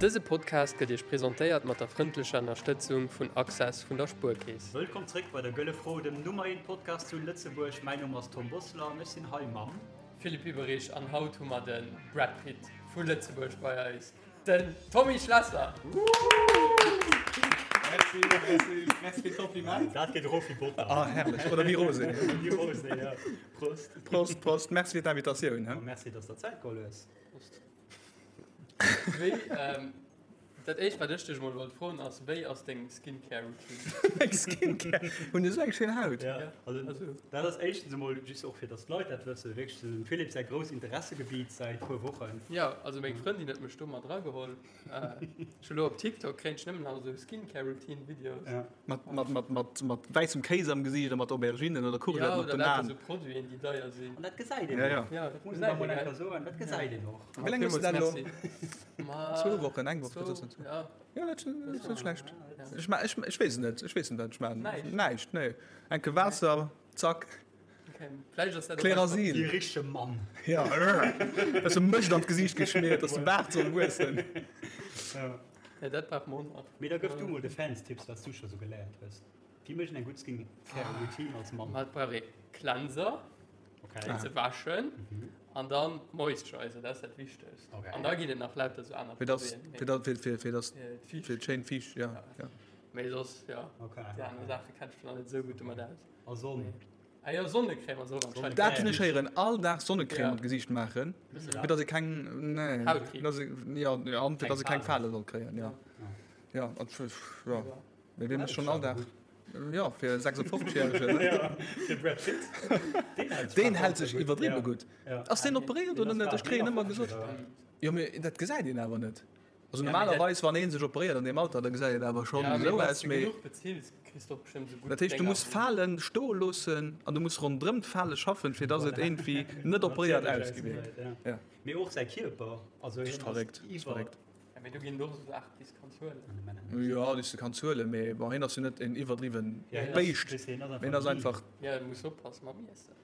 Dëse Podcast gëtt Iech presentéiert mat der frëndlecher Ënnerstëtzung vun Access vun der Spuerkeess. Wëllkomm zréck bei der Gëlle Fro, dem Nummer 1 Podcast zu Lëtzebuerg. Mäin Numm ass Tom Bosseler an ech sinn hei mam. Philippe Hüberich an haut hu mer de Brad Pitt vu Lëtzebuerg bei eis, den Tommy Schlesser! Merci, merci, merci fir d'Kompliment. Dat geet erof wéi Botter. Ah, herrlech. Oder wéi Rosé. Wéi Rosé, ja. Prost. Prost, Prost. Merci fir d'Invitatioun. A merci, dass der Zäit geholl hues. Prost. Wéi, ähm, dat éischt wat ech dech mol wollt froen ass, wéi ass deng Skincare Routine? Meng Skincare? Hunn ech esou eng schéin Haut? Ja, also dat ass éischtens emol just och fir dass d'Leit dat wëssen, wierklech dem Philippe säi grousst Interessegebiet säit puer Wochen. Ja, also meng Frëndin huet mech do mat erageholl. Ech hu lo op TikTok kréien ech nëmmen nach esou Skincare Routine Videos. Ja. Mat, mat, mat, mat, mat wäissem Kéis am Gesiicht a mat Auberginen oder Courgetten op den Aen. Ja, oder lauter esou Produiten déi deier sinn. An dat gesäit een Ja, ja. och. Ja, dat muss een da mol eng Kéier soen, dat gesäit een och. Wéi laang hues du dat elo? Ma, Zwou Wochen, eng Woch, zwou, dat ass net. ja. Ja, dat ass net schlecht. Ech ma, ech, ech weess et net, ech weess net, wat ech maachen. Näischt. Näischt, nee. Enke Waasser, zack. Okay. Vläicht ass dat och Klerasil. Wéi e richtege Mann. Ja, bësse Mëscht an d'Gesiicht geschmiert, dass de Baart soll wuessen. Ja. Ja, dat brauch mer och nach. Mee da gëff du mol de Fans Tipps, wat s du scho sou geléiert hues. Wéi mécht een eng gutt Skincare Routine als Mann? Ma et brauch ee Cleanser. Okay. Fir ze wäschen an dann Moisturizer, dat ass dat Wichtegst. Okay. An da ginn et nach lauter sou aner Fir dass, Produiten. fir dass, fir, fir, fir dass, Fir fir d'schéin Fiicht, ja, ja. Mee soss, ja, Okay. déi aner Saache kennt ech mech nach net esou gutt domat aus. A Sonn? Ah jo, Sonnecrème ass och anscheinend. Dat hunn ech héieren, all Dag Sonnecrème Ja. an d'Gesiicht maachen, Wëss du dat? fir dass ee keng, nee, Hautkriibs. dass ee, ja, ja, an fir dass ee keng Fale soll kréien, ja. Ja, an, ja. Mee wee mécht schonn all Dag? Jo, fir e 56 järegen. Ja, fir Brad Pitt. Deen hält sech Deen hält sech iwwerdriwwe gutt. Ass deen operéiert oder net? Ech kréien ëmmer gesot. Jo, mee dat gesäit een awer net. Also normalerweis, wann ee sech operéiert an deem Alter, da gesäit et awer schonn esou aus. Mee dat heescht, du muss Falen stoe loossen an du muss ronderëm d'Fale schaffen, fir datt et iergendwéi net operéiert ausgesäit. Ja. Mee och säi Kierper, also hien ass iwwer. Ja, mee do ginn et och esou Saachen, déi s de kanns huelen. Jo, déi s de kanns huelen, mee bon, hien ass jo net en iwwerdriwwen Béischt, mee hien ass einfach. Ja, du muss oppassen mam Iessen.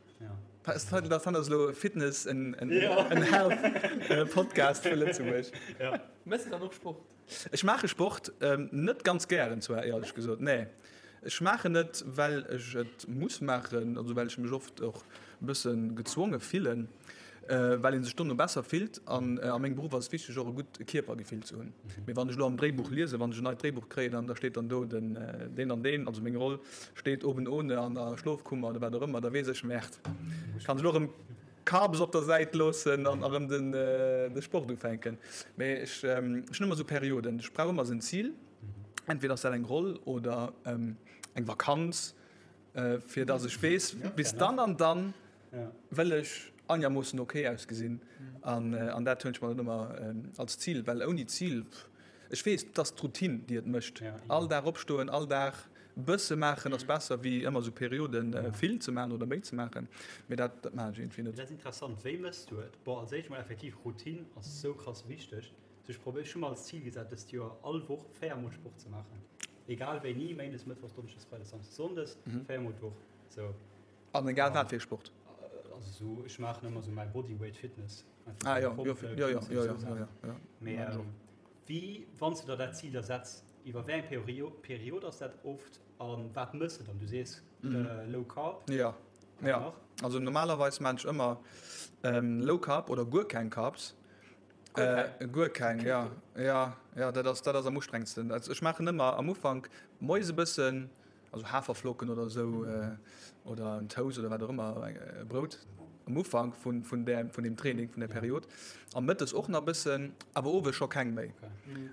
Dat ass elo Fitness and Health Podcast vu Lëtzebuerg. Méchs de dann och Sport? Ech maache Sport, net ganz gären zwar, éierlech gesot, nee. Ech maachen et, well ech et muss maachen, also well ech mech oft och e bësse gezwonge fillen, well ee sech dono besser fillt. An a mengem Beruff ass et wichteg, och e gutt Kierpergefill ze hunn. Mee wann ech elo am Dréibuch liesen, wann ech en neit Dréibuch kréien an da steet dann do den deen an deen, also meng Roll steet oben ohne an der Schlofkummer oder wat och ëmmer, da weess ech, Merde, kann ech elo erëm Carbs op der Säit loossen an erëm den de Sport ufänken. Mee ech hunn ëmmer esou Perioden, ech brauch ëmmer esou en Zil. Entweder ass dat eng Roll oder eng Vakanz, fir dass ech weess, bis dann an dann wëll ech einermoossen ok ausgesinn. An dat hunn ech mer dann ëmmer als Zil, well ouni Zil, ech weess, et ass d'Routine, déi et mécht. All Dag opstoen, all Dag e bësse maachen ass besser wéi ëmmer esou Perioden vill ze maachen oder méi ze maachen. Mee dat maachen ech iergendwéi net. Dat ass interessant. Wéi méchs du et? Bon, als éischt mol effektiv, Routine ass esou krass wichteg. Ech probéier, ech hu mer als Zil gesat dëst Joer all Woch 4 mol Sport ze maachen. Egal wéini, Méindes, Mëttwochs, Donneschdes, Freides, Samsdes, Sonndes, 4 mol d'Woch. Sou. An egal wat fir Sport? Also sou, ech maachen ëmmer sou mäi Bodyweight Fitness. Ah jo, jo, jo, jo, jo, jo, jo. Mee wéi, wann s du der dat Zil da setz, iwwer wéi eng Period ass dat oft a wat mëss de dann? Du sees Low Carb. Jo, jo. Also normalerweis maan ech ëmmer Low Carb oder guer keng Carbs. Guer keng, ja. Ja, ja, dat ass, dat ass am ustrengsten. Also ech maachen ëmmer am Ufank moies e bëssen, also Haferflocken oder esou, oder en Toast oder wat och ëmmer, e Brout am Ufank vun, vun där, vun deem Training, vun där Period. A mëttes och nach e bëssen, awer owes scho keng méi.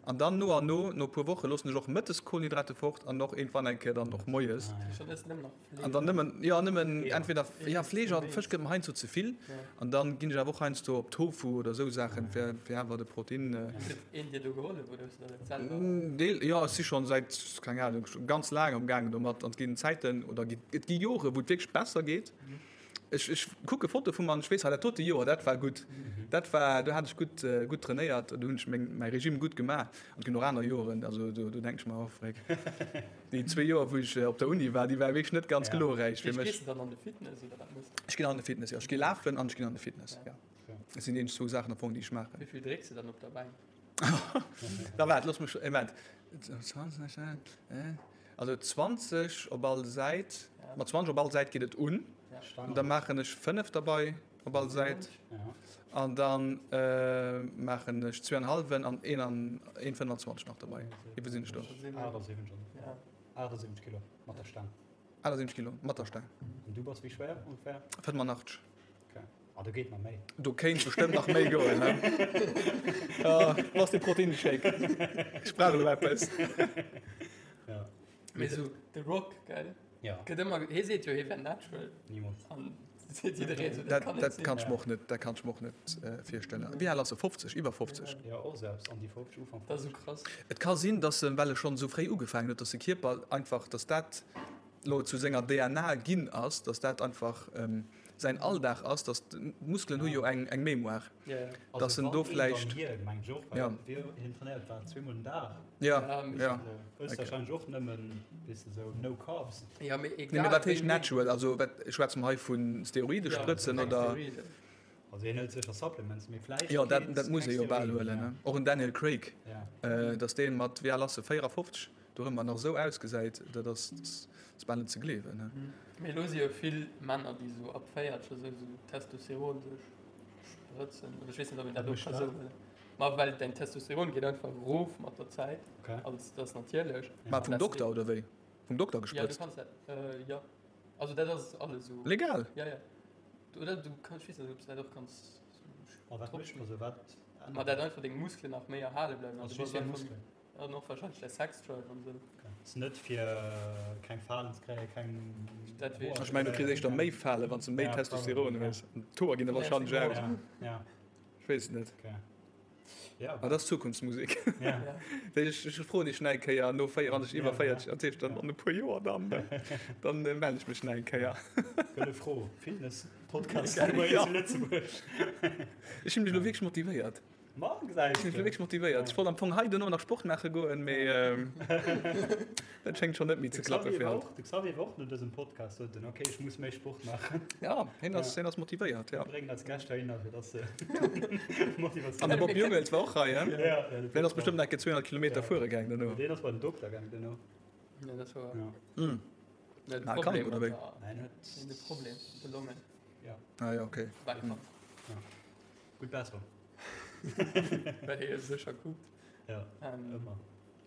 An dann no an no, no e puer Woche loossen ech och mëttes Kohlenhydrate fort an och iergendwann eng Kéier dann och moies. An dann nëmmen, jo nëmmen entweder, ja Fleesch an Fësch gëtt mer heiansdo ze vill. An dann ginn ech awer och heiansdo op Tofu oder esou Saachen, fir fir awer de Protein. Huet een dir do gehollef oder hues du dat et selwer? Deel, jo ech si schonn säit, keng Ahnung, ganz laang am gaangen domat. An et ginn Zäiten oder et gi Jore wou et wierklech besser geet. Ech, ech kucke Fotoe vu mer an ech weess, ah dat dote Joer, dat war gutt. Dat war, do hat ech gutt, gutt trainéiert, do hunn ech meng, mäi Regime gutt gemaach. An et ginn och aner Joren, also do, do denke ech mer, oh freck, déi zwee Joer, wou ech op der Uni war, déi ware wierklech net ganz glorräich fir mech. Gees de dann an de Fitness oder wat méchs de? Ech ginn an de Fitness, jo. Ech gi lafen an ech ginn an de Fitness, jo. Dat sinn déi eenzeg zwou Saachen am Fong, déi ech maachen. Wéi vill drécks de dann op der Bänk? Da waart, looss mech, Moment. 20, also 20 op all Säit. Mat 20 op all Säit geet et un. Da maachen ech 5 derbei op all Säit. An dann maachen ech zwee an hallwen an een an 1,25 nach derbei. Wéi sinn ech do? 78. 78 Kilo mat der Staang. 78 Kilo mat der Staang. An du bass wéi schwéier ongeféier? 85. Okay. Ah, do geet nach méi. Do kéint bestëmmt nach méi goen, ne? Ah, wo ass de Proteinshake? Ech brauch elo eppes. Ja. Mee sou The Rock, gell? Ja. Gëtt ëmmer, hie seet jo, hie wär natural. Nimools. An seet jiddereen sou, dat Dat, kann net dat sinn. kann ech mer och net, dat kann ech mer och net virstellen. Wéi al ass e? 50? Iwwer 50? Ja, och selbst an déi 50, Ufank Dat ass 50. sou krass. Et ka sinn, dass en, well e schonn esou fréi ugefaangen huet, dass de Kierper einfach, dass dat lo zu senger DNA ginn ass, dass dat einfach säin Alldag ass, dass d'Muskelen hu jo eng eng Mémoire, dass en do vläicht. Ja. Ja, ja. Nee, mee wat heescht natural? Also wat schwätze mer hei vu Steroidesprëtzen oder? Also hien hëlt sécher Supplements, mee vläicht. Jo, dat dat muss e jo bal huelen, ne? Och en Daniel Craig, dass dee mat, wéi al ass e, 54? Dorëmmer nach esou ausgesäit, dat ass, ass bal net ze gleewen, ne? Mee elo si jo vill Männer, déi esou ab 40 esou esou Testosteron sech sprëtzen. Oder ech weess net, ob een dat och ka sou huelen. Ma well däin Testosteron geet einfach erof mat der Zäit. Okay. Also dat ass natierlech. Mä vum Dokter, oder wéi? Vum Dokter Ja, du gesprëtzt? kanns dat, jo. Also dat ass alles esou. Legal? Ja, ja. Oder du kanns, ech weess net, ob s du dat och kanns Ma wat mécht, also wat ännert Ma dat einfach deng Muskelen nach méi erhale bleiwen. Also Also du just bass fir einfach Muskelen? An och wahrscheinlech däi Sexdrive an esou. Ass net fir keng Falen ze kréien, keng Dat weess Ech mengen du kriss éischter méi Falen wann s de méi Testosteron hues. An d'Hoer ginn der wahrscheinlech aus. Ja. Ech weess et net. Okay. Ja. Awer dat ass Zukunftsmusek. Ja. Ech ech froen dech nach eng Kéier no 4, wann ech iwwer 40, dat heescht dann an e puer Joer dann, dann mellen ech mech nach eng Kéier. Gëlle Fro, Fitness Podcast Nummer 1 zu Lëtzebuerg. Ech hunn mech elo wierklech motivéiert. Ma, gesäis Ech sinn de. wierklech motivéiert. Ech wollt am Fong hei duerno nach Sport maache goen, mee dat schéngt schonn net méi ze De klappe Xavier fir war haut. och, de Xavier war och no dësem Podcast, sot en, okay, ech muss méi Sport maachen. Ja, hien ass, hien ass motivéiert, ja. Mir bréngen eis Gäscht heihinner, fir dass se Motivatioun. An de Bob Jungels war och hei, hein? Ja, ja, de Deen ass Bob bestëmmt enke 200 Kilometer Ja. fuere gaang duerno. Deen ass bei den Dokter gaang duerno. Ja, dat war. Ja. Mm. Ja, de Na, Problem krank, oder wéi? mat der- Nein, huet. De Problem, de Longen. Ja. Ah ja, okay. War krank. Ja. Gutt Besserung. Well hie sécher kuckt. Ja, Ähm, ëmmer.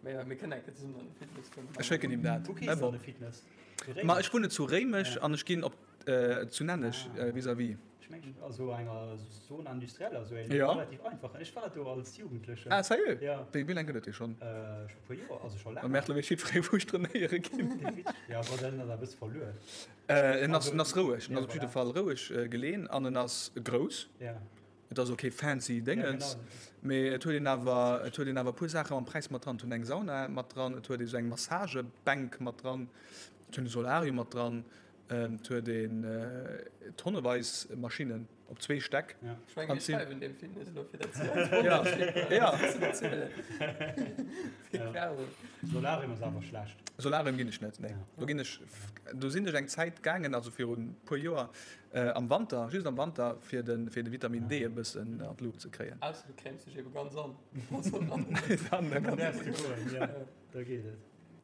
Mee ja, mir kënnen eng Kéier zesummen an de Fitness goen. Ech schécken him dat. Wou gees de an de Fitness? Zu Ma Réimech? ech wunnen zu Réimech Ja. an ech ginn op äh, zu Nenneg Ah. äh, vis-à-vis. Ech mengen, also enger Zone industrielle, also eng Ja. relativ einfach. Ech war do als Jugendlechen. Ah, sérieux? Ja. Wéi, wéi laang gëtt et dee schonn? Äh, scho puer Joer, also scho Am laang. Märtel weess jiddweree wou ech trainéiere ginn. Ja, aber dann ass e bësse verluer. Äh, en ass, Also, en ass roueg, en ja, ass op jidde voilà. Fall roueg äh, geleen an en ass grouss. Ja. Et ass ok fancy Déngens, Ja, genau. mee et huet een awer, et huet een awer e puer Saache mam Präis mat dran. Et huet eng Sauna mat dran, et huet ee sou eng Massagebänk mat dran, et huet e Solarium mat dran, et huet een tonneweis Maschinnen op zwee Stäck. Ja. Ech mengen, An mir sinn- schreiwen deem Fitness elo fir dat ze Ja, ja. Ja. Ja. Solarium ass awer schlecht. Solarium ginn ech net, nee. Ja. Do ginn ech, do sinn ech eng Zäit gaangen, also virun e puer Joer, Am Wanter, just am Wanter, fir de fir de Vitamin D e bëssen an d'Luucht ze kréien. Ausser du crèmes dech ebe ganz an. Dann Dann däerfs du goen, jo, da geet et.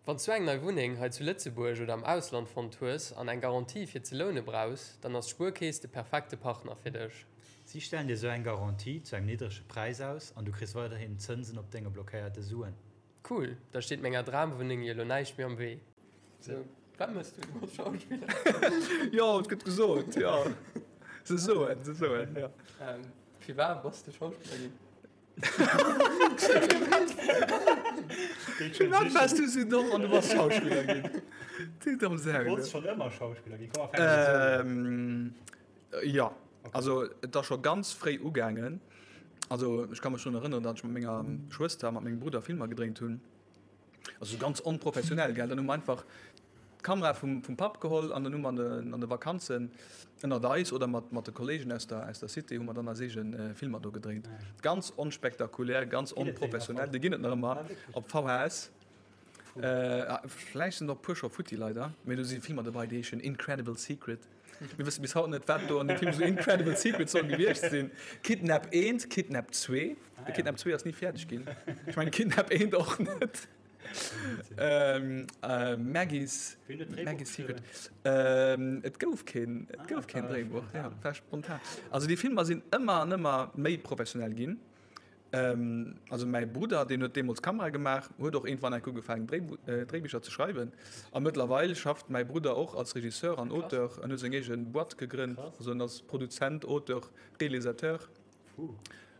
Wann s du eng nei Wunneng hei zu Lëtzebuerg oder am Ausland fonnt hues an eng Garantie fir ze loune brauchs, dann ass d'Spuerkeess de perfekte Partner fir dech. Si stellen dir sou eng Garantie zu engem niddrege Präis aus an du kriss weiderhin Zënsen op denge blockéierte Suen. Cool, da steet menger Dramwunneng jo lo näischt méi am Wee. Sou, wat mëss du? Du bass Schauspiller. Jo, et gëtt gesot, jo. Se soen, se soen, jo. Firwat bass de Schauspiller ginn? Firwat waars du sou domm an du bass Schauspiller ginn? Du domm Sau, du. Wollts schonn ëmmer Schauspiller ginn? Komm, mer fänken esou un. Jo, also et ass scho ganz fréi ugaangen. Also ech ka mech drun erënneren, datt ech mat menger Schwëster a mat mengem Brudder Filmer gedréint hunn. Also sou ganz onprofessionell, gell. Dann hu mer einfach d'Kamera vum, vum Papp geholl an dann hu mer an de, an de Vakanzen ënnert eis oder mat, mat de Kolleegen aus der, aus der Cité hu mer dann eis eege Filmer do gedréint. Ganz onspektakulär, ganz Ginn et déi nach onprofessionell. haut? Déi ginn et nach ëmmer Ah, wierklech? op VHS. Vläicht sinn der och e puer scho futti, leider. Mee do si Filmer dobei, déi heeschen Incredible Secret. Mir wësse bis haut net, wat do an deem Film esou Incredible Secret soll gewiescht sinn. Kidnap 1, Kidnap 2. De Kidnap 2 ass ni fäerdeg ginn. Ech mengen Kidnap 1 och net. Maggie's, Maggie's Secret. Et gouf keen, et gouf keen Dréibuch. Ja, war spontan. Also déi Filmer sinn ëmmer an ëmmer méi professionell ginn. Also mäi Brudder, deen huet deemools Kamera gemaach, huet och iergendwann enk ugefaangen Dréibicher ze schreiwen. A mëttlerweil schafft mäi Brudder och als Regisseur an Auteur an huet seng eege Boîte gegrënnt. Also en ass Produzent, Auteur, Realisateur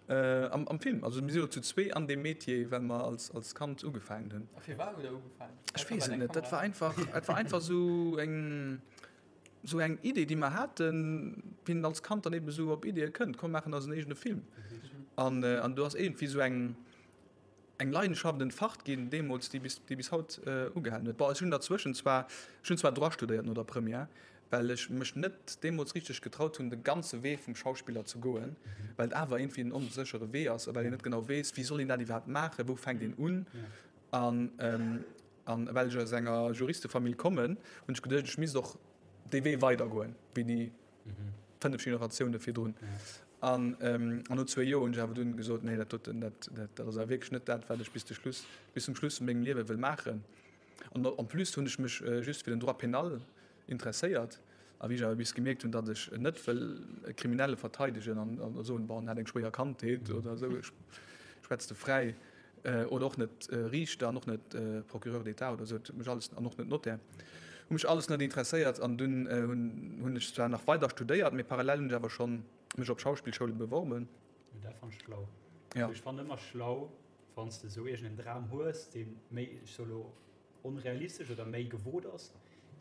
am Film. Also mir si lo zu zwee an deem Metier, well mer als Kand ugefaangen hunn. A firwat hutt der ugefaangen? Ech weess et net. Dat war einfach, dat war einfach esou eng. Sou eng Idee, déi mer haten, wéi een als Kand dann eben esou op Ideeë kënnt, komm maachen eisen eegene Film. An, an do ass iergendwéi esou eng, eng Leidenschaft entfacht ginn deemools, déi bis, déi bis haut ugehalen huet. Bon, ech hunn derzwëschen zwar, ech hunn zwar Droit studéiert no der Première, well ech mech net deemools richteg getraut hunn, de ganze Wee vum Schauspiller ze goen, well et awer iergendwéi en onséchere Wee ass a well een net genau weess, wéi soll een dat iwwerhaapt maachen, wou fänkt een un. An, An well ech aus enger Juristefamill kommen, hunn ech geduecht, ech misst och dee Wee weidergoen, wéi déi 5 Generatioune virdrun. An no zwee Joer hunn ech awer dunn gesot, nee, dat doten, dat, dat ass awer wierklech net dat, wat ech bis de Schluss, bis zum Schluss vu mengem Liewe wëll maachen. An en plus hunn ech mech just fir den Droit pénal interesséiert. A wéi ech awer bis gemierkt hunn, datt ech net wëll e Kriminelle verteidegen an soen, bon, en hat eng schwéier Kandheet oder esou, ech schwätz de fräi, oder och net Riichter an och net Procureur d'État oder esou, dat huet mech alles, an och net Notaire, hu mech alles net interesséiert. An dunn hunn ech zwar nach weider studéiert, mee parallel hunn ech awer schonn mech op Schauspillschoule beworben. Dat fannen ech schlau. Ech fannen ëmmer schlau, wann s de esou iergend en Dram hues, dee méi, ech soe lo, onrealistesch oder méi gewot ass,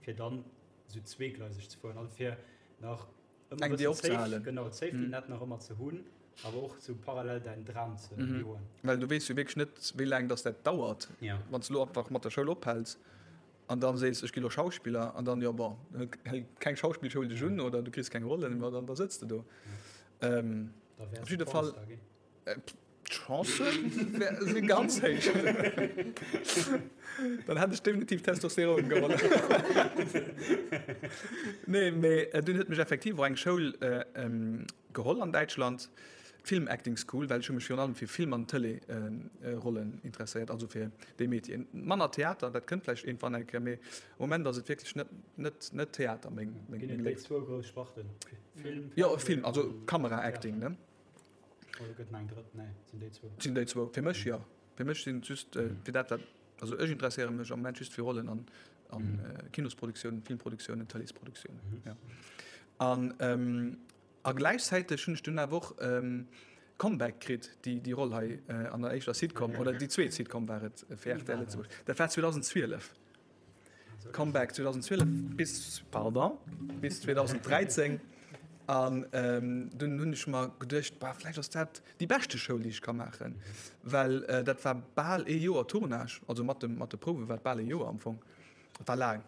fir dann esou zweegleiseg ze fueren, also fir nach ëmmer Eng Dier opzehalen. Genau, d'Safety Net nach ëmmer ze hunn, awer och sou parallel däin Dram ze joen. Well du weess jo wierklech net, wéi laang dass dat dauert. Wann s de elo einfach mat der Schoul ophäls an dann sees, ech gi lo Schauspiller, an dann, jo bon, hält keng Schauspillschoul dech un oder du kriss keng Rollen, ma dann da sëtz de do. Op jidde Fall. D'Chancen si ganz héich. Dann hätt ech definitiv Testosteron geholl. Nee, mee dunn huet mech effektiv och eng Schoul geholl an Däitschland, d'Film Acting School, well ech hu mech virun allem fir Film an Tëlee-Rollen interesséiert, also fir déi Métieren. Manner Theater, dat kënnt vläicht iergendwann eng Kéier, mee am Moment ass et wierklech net, net, net Theater meng, meng Ginn et déi zwou grouss Sparten? Film, Jo, Film, also Kamera-Acting, ne? Oder gëtt nach eng drëtt? Nee, et sinn déi zwou. Et sinn déi zwou. Fir mech jo. Fir mech sinn et just fir dat, wat, also ech interesséiere mech am Moment just fir Rollen an an Kinosproduktiounen, Filmproduktiounen, Tëleesproduktiounen. Ja. An a gläichzäiteg hunn ech dunn awer och Comeback kritt, déi déi Roll hei an der éischter Sitcom, oder déi zweet Sitcom war et fir rtl Lëtzebuerg. Dat war 2012. Comeback 2012 bis, pardon, bis 2013 an dunn hunn ech mer geduecht, bah, vläicht ass dat déi beschte Schoul, déi ech ka maachen, well dat war bal ee Joer Tournage, also mat dem, mat de Prouwe war et bal ee Joer am Fong, et war laang.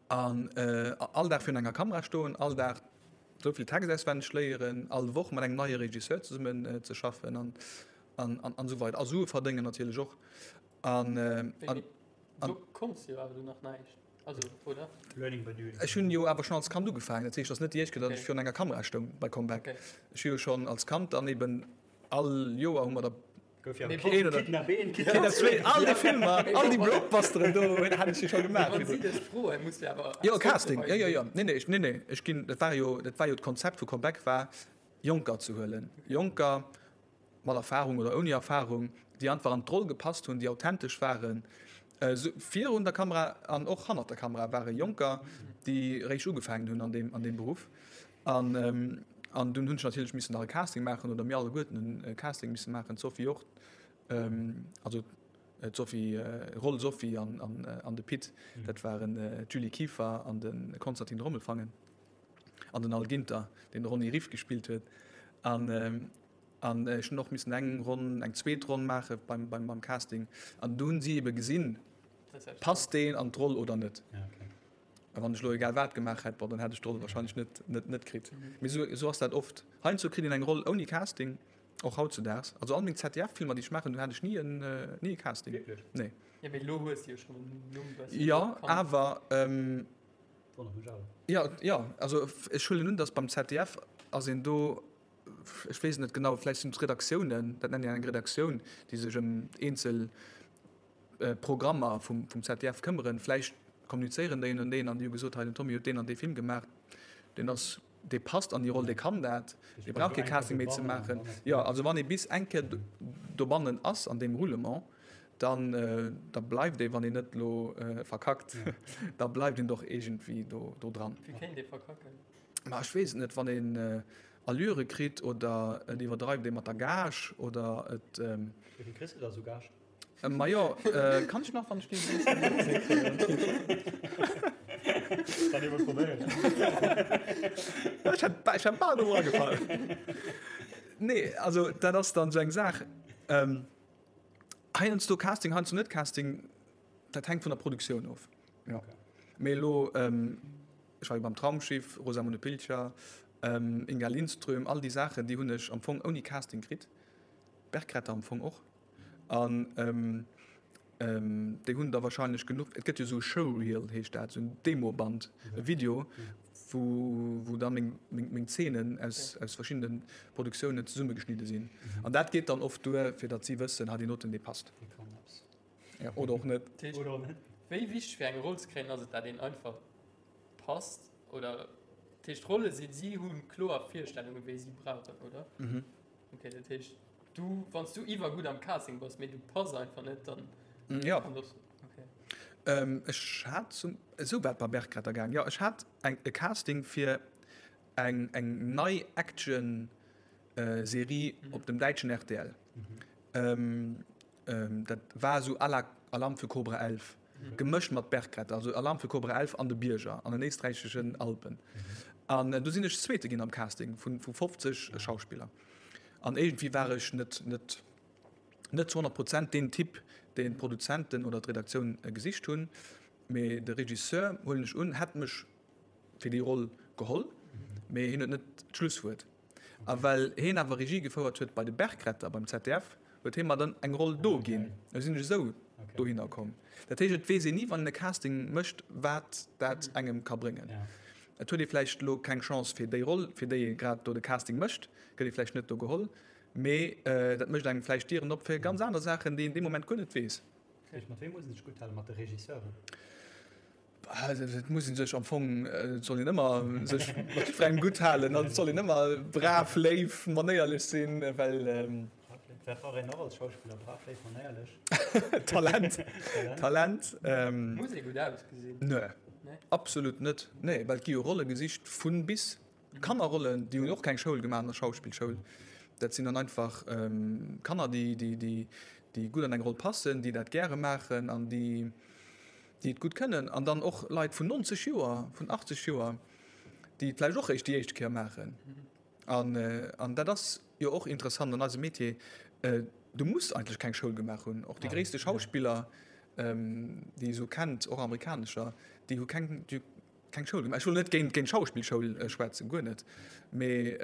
An all Dag virun enger Kamera stoen, all Dag esou vill Text auswenneg léieren, all Woch mat engem neie Regisseur zesummen ze schaffen an, an, an esou weider a Sue verdéngen natierlech och. An, an, an, Du konns jo awer du nach näischt, also, oder? Learning by doing. Ech hunn jo awer schonn als Kand ugefaangen. Dat heescht, et ass net déi éischt Kéier, datt ech virun enger Kamera stoung bei Comeback. Okay. Ech hu jo schonn als Kand dann eben all Joer hu mer da Gouf jo Mee Kid, Kidnap 1, Kidnap 2, all déi Filmer, all déi Blockbusteren do hat ech jo scho gemaach. Wann si dech froen, muss de awer Jo, Casting, jo, jo, jo. Nee, nee, ech, nee, nee, ech ginn, dat war jo, dat war jo d'Konzept vu Comeback war, Jonker ze huelen. Jonker, mat Erfahrung oder ouni Erfahrung, déi einfach an d'Roll gepasst hunn, déi authentesch waren, virun der Kamera an och hannert der Kamera ware Jonker, déi réischt ugefaangen hunn an deem, an deem Beruff. An, an dunn hunn ech natierlech missen nach e Casting maachen, oder mir alleguerten hunn e Casting misse maachen, d'Sophie och, also d'Sophie, Roll Sophie an, an, an de Pit, dat waren d'Julie Kieffer an de Konstantin Rommelfangen an den Al Ginter, deen de Ronny Riff gespillt huet. An, An ech hunn och missen eng Ronn, eng zweet Ronn maache beim, beim, beim Casting. An do hunn si ebe gesinn, passt deen an d'Roll oder net. A wann ech elo egal wat gemaach hätt, bon, dann hätt ech d'Roll wahrscheinlech net, net, net kritt. Mee esou, esou ass dat oft. Heiansdo kritt een eng Roll ouni Casting, och hautzedaags. Also all meng ZDF-Filmer, déi ech maachen, do hat ech ni en, ni e Casting. Wierklech? Nee. Jo, mee elo hues de jo schonn en Numm bëssen. Jo, awer. Wonnert mech awer. Jo, jo, also ech huelen un, datt beim ZDF ass een do, ech weess et net genau, vläicht sinn et d'Redaktiounen, dat nennt een eng Redaktioun, déi sech ëm eenzel Programmer vum ZDF këmmeren. Vläicht kommunizéieren déi ënnerteneen an déi hu gesot, hei den Tommy huet deen an dee Film gemaach, deen ass, dee passt an déi Roll, dee kann dat, dee brauch kee Casting méi ze maachen. Jo, also wann ee bis eng Kéier dobannen ass an deem Roulement, dann da bleift ee, wann een net elo verkackt, da bleift een doch iergendwéi do do dran. Wéi kéint ee verkacken? Ma ech weess et net, wann een Allure kritt oder et iwwerdreift ee mat der Gage oder et. Wéi vill kriss de da sou Gage? Majo, kann ech nach, wann ech dee Kann ee mol probéieren. Ech hätt, ech hätt bal drop eragefall. Nee, also dat ass dann esou eng Saach. Heiansdo Casting, heiansdo net Casting, dat hänkt vun der Produktioun of. Jo. Mee elo, ech war jo beim Traumschiff, Rosamunde Pilcher, Inga Lindström, all déi Saachen, déi hunn ech am Fong ouni Casting kritt. Bergretter am Fong och. An déi hunn da wahrscheinlech genuch, et gëtt jo esou e Showreel heescht dat, esou en Demoband, e Video, wou, wou da meng, meng, meng Zeenen aus, aus verschiddene Produktiounen zesummegeschnidde sinn. An dat geet dann oft duer, fir datt si wëssen, ha deen doten, dee passt. Dee kann eppes. Ja, oder och net. Dat heescht, Oder och net. wéi wichteg fir eng Roll ze kréien ass et, dat een einfach passt? Oder, dat heescht, d'Rolle sinn, si hu kloer Virstellungen, wéi si brauchen, oder? Okay, dat heescht, du, wann s du iwwergutt am Casting bass, mee du pass einfach net, dann. Ja. Kann das, okay. Ähm, ech hat zum, esou war et bei Bergretter gaang, jo, ech hat eng, e Casting fir eng, eng nei Action Serie op dem däitschen rtl. Ähm, dat war esou à la Alarm für Cobra 11, gemëscht mat Bergretter, also Alarm für Cobra 11 an de Bierger, an den éisträicheschen Alpen. An do sinn ech Zweete ginn am Casting vu 50 Schauspiller. An iergendwéi war ech net, net, net zu 100 Prozent deen Typ, deen d'Produzenten oder d'Redaktioun gesicht hunn. Mee de Regisseur, huelen ech un, hätt mech fir déi Roll geholl, mee hien huet net d'Schlusswuert. A well heen awer Regie gefouert huet bei de Bergretter beim ZDF, huet hee mer dann eng Roll do ginn. Esou sinn ech esou dohinner komm. Dat heescht, et weess een ni, wann een e Casting mécht, wat dat engem ka bréngen. Et huet ee vläicht elo keng Chance fir déi Roll, fir déi ee grad do de Casting mécht, gëtt ee vläicht net do geholl, mee dat mécht engem vläicht Dieren op fir ganz aner Saachen, déi een dee Moment guer net weess. Mat wem muss een sech gutt halen? Mat de Regisseuren? Et muss een sech am Fong, et soll een ëmmer sech mat jiddwerengem gutt halen an et soll een ëmmer brav, léif, manéierlech sinn, well. Wat brauch een nach als Schauspiller? Brav, léif, manéierlech. Talent. Talent. Muss ee gutt ausgesinn? Nee, absolut net. Nee, well et gi jo Rolle gesicht vu bis. Kannerrollen, déi hunn och keng Schoul gemaach an der Schauspillschoul. Dat sinn dann einfach Kanner, déi, déi, déi gutt an eng Roll passen, déi dat gäre maachen an déi. déi et gutt kënnen, an dann och Leit vun 90 Joer, vun 80 Joer, déi et vläicht och eréischt déi éischt Kéier maachen. An, an dat ass jo och interessant an eisem Metier, du muss eigentlech keng Schoul gemaach hunn. Och déi gréisste Schauspiller, déi ee sou kennt, och amerikanescher, déi hu keng, déi hu keng Schoul gemaach. Ech wëll net géint, géint d'Schauspillschoul schwätzen, guer net, mee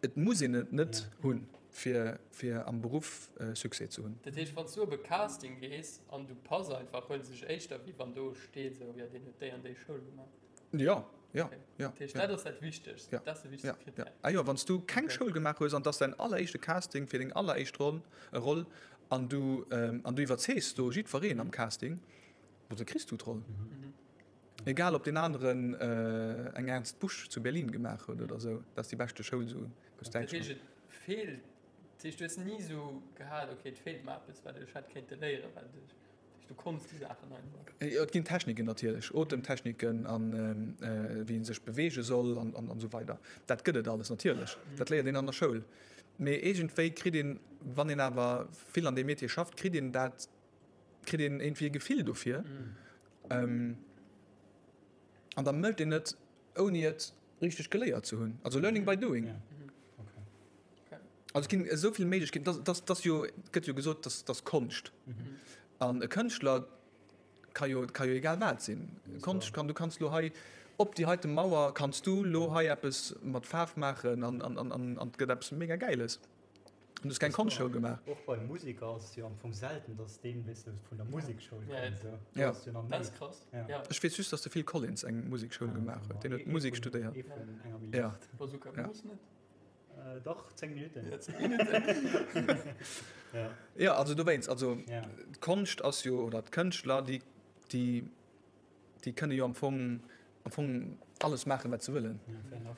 Et muss een et net hunn, fir fir am Beruff Succès ze hunn. Dat heescht, wann s du op e Casting gees an du pass einfach, huele se dech éischter, wéi wann do steet esou, jo deen huet déi an déi Schoul gemaach. Jo, jo, jo. Dat heescht, dat ass dat Wichtegst, dat ass de wichtegste Krittär. Jo, ah jo, wann s du keng Schoul gemaach hues an et ass däin alleréischte Casting fir deng alleréischt Roll, Roll an du an du iwwerzeegs do jiddwereen am Casting, da kriss du d'Roll. Egal ob deen aneren eng Ernst Busch zu Berlin gemaach huet oder esou, dat ass déi beschte Schoul esou aus Dat heescht et feelt, dat heescht du hues ni esou gehat, ok et feelt mer eppes wat ech hätt kéinte léieren, well du, du konns déi Saachen einfach. Jo et ginn Techniken natierlech, Otemtechniken an wéi ee sech beweege soll an an esou weider. Dat gëtt et alles natierlech, dat léiert een an der Schoul. Mee iergendwéi kritt een, wann een awer vill an deem Metier schafft, kritt een dat kritt een iergendwéi e Gefill dofir. Mm. An da mécht een et, ouni et richteg geléiert ze hunn. Also learning by doing. Ja. Okay. Also et ginn esou vill Méiglechkeeten, dass, dass, dass jo, gëtt jo gesot, dass, dass Konscht. Mhm. An e Kënschtler ka jo, ka jo egal wat sinn. Konscht kann, du kanns lo hei op déi heite Mauer kanns du lo hei eppes mat Faarf maachen an, an, an, an, an et gëtt eppes mega Gäiles. Du hues keng Konschtschoul gemaach. Och bei Museker ass et jo am Fong selten, dass deen, weess de, vun der Musekschoul kënnt. Esou. Ja. Do ass jo nach Dat méi. ass krass. Ja. Ja. Ech weess just, dass de Phil Collins eng Musekschoul gemaach huet. Deen huet Musek studéiert. Ee vun enger Ja. Milliard. Bazooka Ja. Bruce net? Äh, dach, 10 Minuten. Ja, 10 Minuten. Ja. Ja, also dowéinst, also Ja. d'Konscht ass jo, oder d'Kënschtler, déi, déi, déi kënne jo am Fong, am Fong alles maachen, wat se wëllen. Ja, fair enough.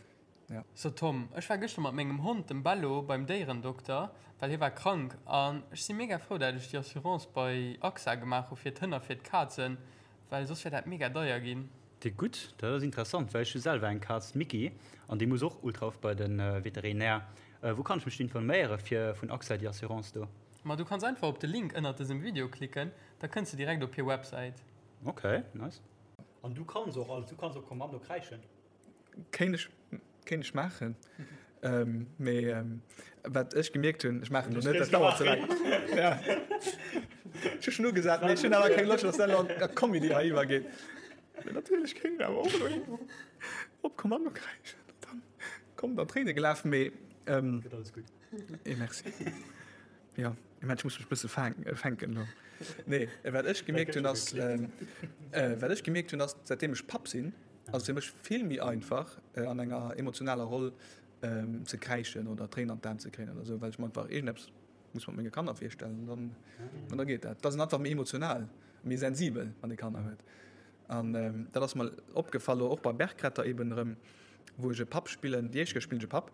Ja. So Tom, ech war gëschter mat mengem Hond, dem Bello, beim Déierendokter, well hie war krank an ech si mega frou dat ech déi Assurance bei AXA gemaach hu fir d'Hënn a fir d'Kazen, well soss wär dat mega deier ginn. Déi gutt, dat ass interessant, well ech hu selwer eng Kaz, d'Micky, an déi muss och ultra oft bei de Veterinär. Wou kann ech mech informéiere fir vun AXA déi Assurance do? Ma du kanns einfach op de Link ënnert dësem Video klicken, da kënns de direkt op hir Websäit. Ok, nice. An du kanns och alles, du kanns op Kommando kräischen? Kéint ech, kéint ech maachen. Ähm, mee ähm, wat ech gemierkt hunn, ech maachen lo net, dat dauert ze laang. Ja. Ech hu schon ugesat, mee ech hunn awer keng Loscht, dass dat lo an a Comedy hei iwwergeet. Mee natierlech kéint een awer och elo op Kommando kräischen an dann kommen der Tréine gelaf, mee ähm, Gëtt alles gutt. Eh, merci. Jo, ich mein, ech muss mech bësse fänken elo. Nee, wat ech gemierkt hunn ass, wat ech gemierkt hunn ass, säitdeem ech Papp sinn, ass et fir mech vill méi einfach an enger emotionaler Roll ze kräischen oder Tréinen an d'Aen ze kréien oder esou, well ech mer einfach iergendeppes muss mat menge Kanner virstellen an dann, an da geet dat. Et ass een einfach méi emotional, méi sensibel, wann ee Kanner huet. An dat ass mer opgefall elo och bei Bergretter eben erëm, wou ech e Papp spillen, déi éischt Kéier spillen ech e Papp,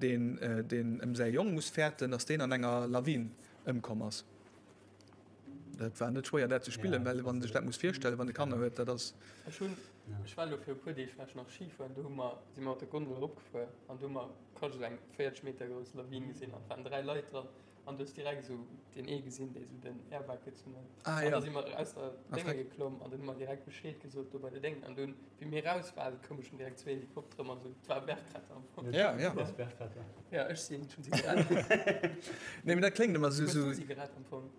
deen deen ëm säi Jong muss fäerten, datt deen an enger Lawin ëmkomm ass. Dat war net schwéier dat ze spillen, well wann ee sech dat muss virstellen, wann e Kanner huet, dat ass. Ech hunn, ech war elo fir e puer Deeg war ech nach Ski fueren, do hu mer, si mer mat der Gondel eropgefuer an do hu mer quasi esou eng 40 Meter grouss Lawin gesinn an et waren 3 Leit dran. An du hues direkt esou deen ee gesinn, dee sou den Airbag gezunn huet. Ah, An ja. da si mer aus der Ah, Dénge freck. geklomm an dann hu mer direkt Bescheed gesot do bei de Déngen. An dunn, wéi mir raus waren, koume schonn direkt zwee Helikoptere mat esou, et war Bergretter am Fong. Ja, ja. Du bass Bergretter. Ja, ech sinn, ech hunn si gerett. Nee, mee dat kléngt ëmmer sou, Hues du sou. si gerett am Fong?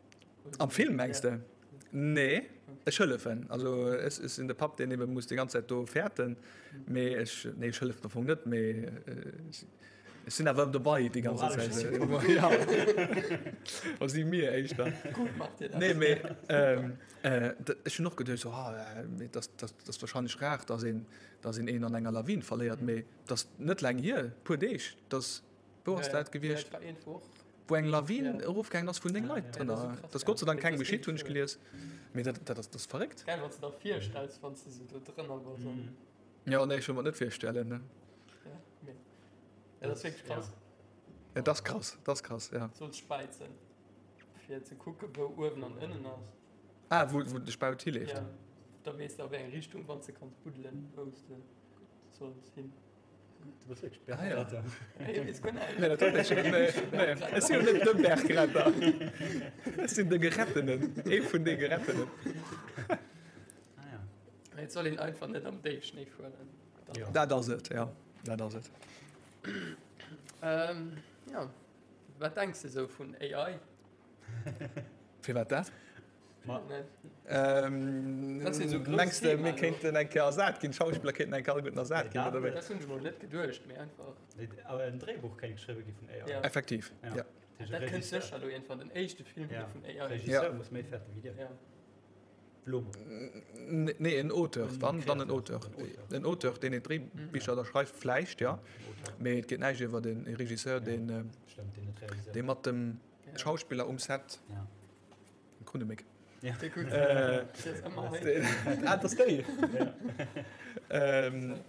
Oder Am si- Film, mengs Ja. de? Nee, ech hëllefen. Also ech, ech sinn de Papp, deen ebe muss déi ganz Zäit do fäerten. Mee ech, nee, ech hëllefen am Fong net, mee ech, Ech sinn awer dobei déi ganze Zäit. Ja. O si mir éischter. Gutt macht Dir dat. Nee, mee ähm, äh, ech hunn och geduecht, so, ah, äh, dat, dat, dat ass wahrscheinlech rar, dass een, dass een een an enger Lawin verléiert, mee dat ass net laang hier, puer Deeg, dass, wou ass dat gewiescht? Ja, dat war een Woch. Wou eng Lawin Ja. erofgaangen ass vun 9 Leit Ja, drënner. dat ass so krass, Dat ass Gott sei Dank ja. kengem Dat ass geschitt, hunn ech wierklech gelies. Mee dat, dat ass, dat ass verréckt. Geil, wann s de der virstells, wann s de sou do drënner bass. an- Ja, nee, ech wëll mer et net virstellen, ne. Ja, mee. Ja, dat ass wierklech krass. Ja, dat ass krass, dat ass krass, ja. Solls späizen, fir ze kucken, wou uewen an ënnen ass. Ah, wou, wou de Spaut hileeft. Ja, da weess de a wéi eng Richtung, wann s de kanns buddelen, wou s de solls hin. Du bass wierklech Ah, ja. Bergretter. Hey, weess guer näischt. Nee, dat huet ech, nee, nee. Ech sinn jo net de Bergretter. Ech sinn de Gerettenen, ee vun de Gerettenen. Ah, ja. Et soll een einfach net am Déifschnéi fueren. Ja. Dat ass et, ja. Dat ass et. Ähm, ja. Wat denks de sou vun AI? Firwat dat? Ma- Net. Ähm, Dat sinn esou grouss mengs de, Themen, mir kéinten eng Kéier ersat ginn, d'Schauspiller kéinten eng Kéier alleguerten ersat ginn, Ja, oder wéi? Dat hunn ech mol net geduecht, mee einfach. Awer en Dréibuch kéint geschriwwe gi vun AI. Ja. Effektiv, Ja. ja. Dat heescht, Dat kënnt Regisseur- sécher elo iergendwann, den éischte Film Ja. vun AI. Regisseur Ja. muss méi fäerte wéi dir. Ja. Nee, en Auteur, dann, dann en Auteur. En Auteur, deen ee Dréibicher da schreift, vläicht, ja. Mee et geet näischt iwwer e Regisseur, deen, dee mat dem Schauspiller um Set, Krunneméck. Ah, dat ass déi!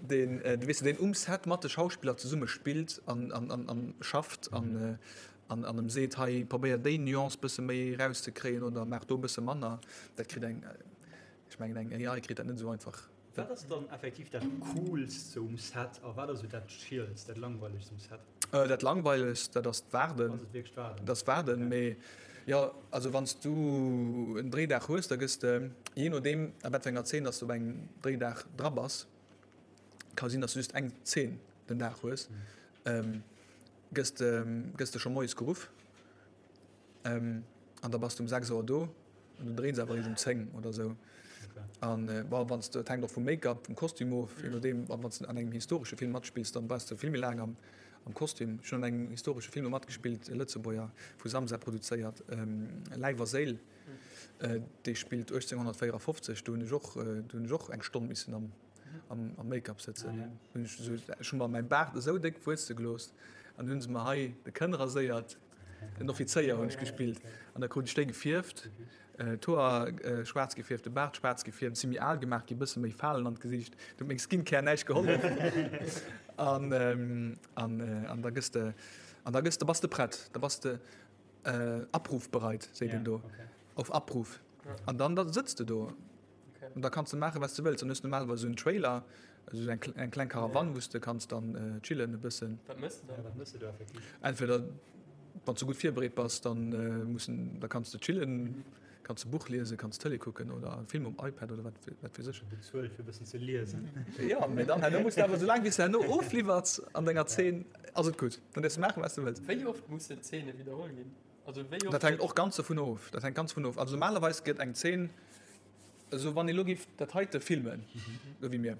Deen, weess de, deen um Set mat de Schauspiller zesumme spillt an, an, an, an schafft an, An an em seet, hei probéier déi Nuance bësse méi erauszekréien oder maach do bësse manner, dat kritt eng, ech mengen eng AI kritt dat net esou einfach. Wat ass dann effektiv dat coolst sou um Set a wat ass sou dat chillst, dat langweilegst um Set? Dat langweilegst, dat ass d'Waarden. Ass et wierklech d'Waarden? Dat ass d'Waarden, mee jo, also wann s du en Dréidag hues, da gëss de, jee nodeem a wat fir enger Zeen dass du op engem Dréidag dra bass, ka sinn, dass du just eng Zeen den Dag hues, gëss de gëss de scho moies geruff an da bass de um 6 Auer do an du dréins awer eréischt um 10 oder esou. An bon, wann s de, et hänkt och vum Make-up, vum Kostüm of, je nodeem, wann s de an engem historesche Film matspills, dann bass de vill méi laang am. am Kostüm. Ech hunn an engem historesche Film do matgespillt, e Lëtzebuerger, vu Samsa produzéiert, Läif a Séil. Dee spillt 1854. Do hunn ech och, do hunn ech och eng Stonn missen am, am Make-up sëtzen. Hunn ech esou, ech hu mer mäi Baart esou déck wuesse gelooss an hunn se mer hei de Kënn raséiert. En Offizéier hunn ech gespillt an da krut ech déi gefierft, d'Hoer schwaarz gefierft, de Baart schwaarz gefierft, si méi al gemaach gi, bësse méi Falen an d'Gesiicht. Do huet meng Skincare näischt gehollef. An, an, an da gëss de, an da gëss de, bass de prett, da bass de abrufbereit, seet een do, auf Abruf. An dann da sëtz de do. An da kanns de maachen, wat s de wëlls. Dann hues de normalerweis esou en Trailer, esou eng, eng kleng Karawann, wou s de kanns dann chillen e bëssen. Wat méchs de dann? Wat méchs de do effektiv? Entweder, wann s de gutt virbereet bass, dann mussen, da kanns de chillen, kanns e Buch liesen, kanns Tëlee kucken oder e Film um iPad oder wat, wat weess ech. Bezuelt fir e bëssen ze liesen. Jo, mee dann herno muss de awer, soulaang wéi s de herno ofliwwers an denger Zeen, ass et gutt. Dann däerfs de maachen, wat s de wëlls. Wéi oft mussen Zeene widderholl ginn? Also wéi oft Dat hänkt och ganz dovun of. Dat hänkt ganz dovun of. Also normalerweis gëtt eng Zeen, esou wann ee lo géif dat heite filmen, esou wéi mir,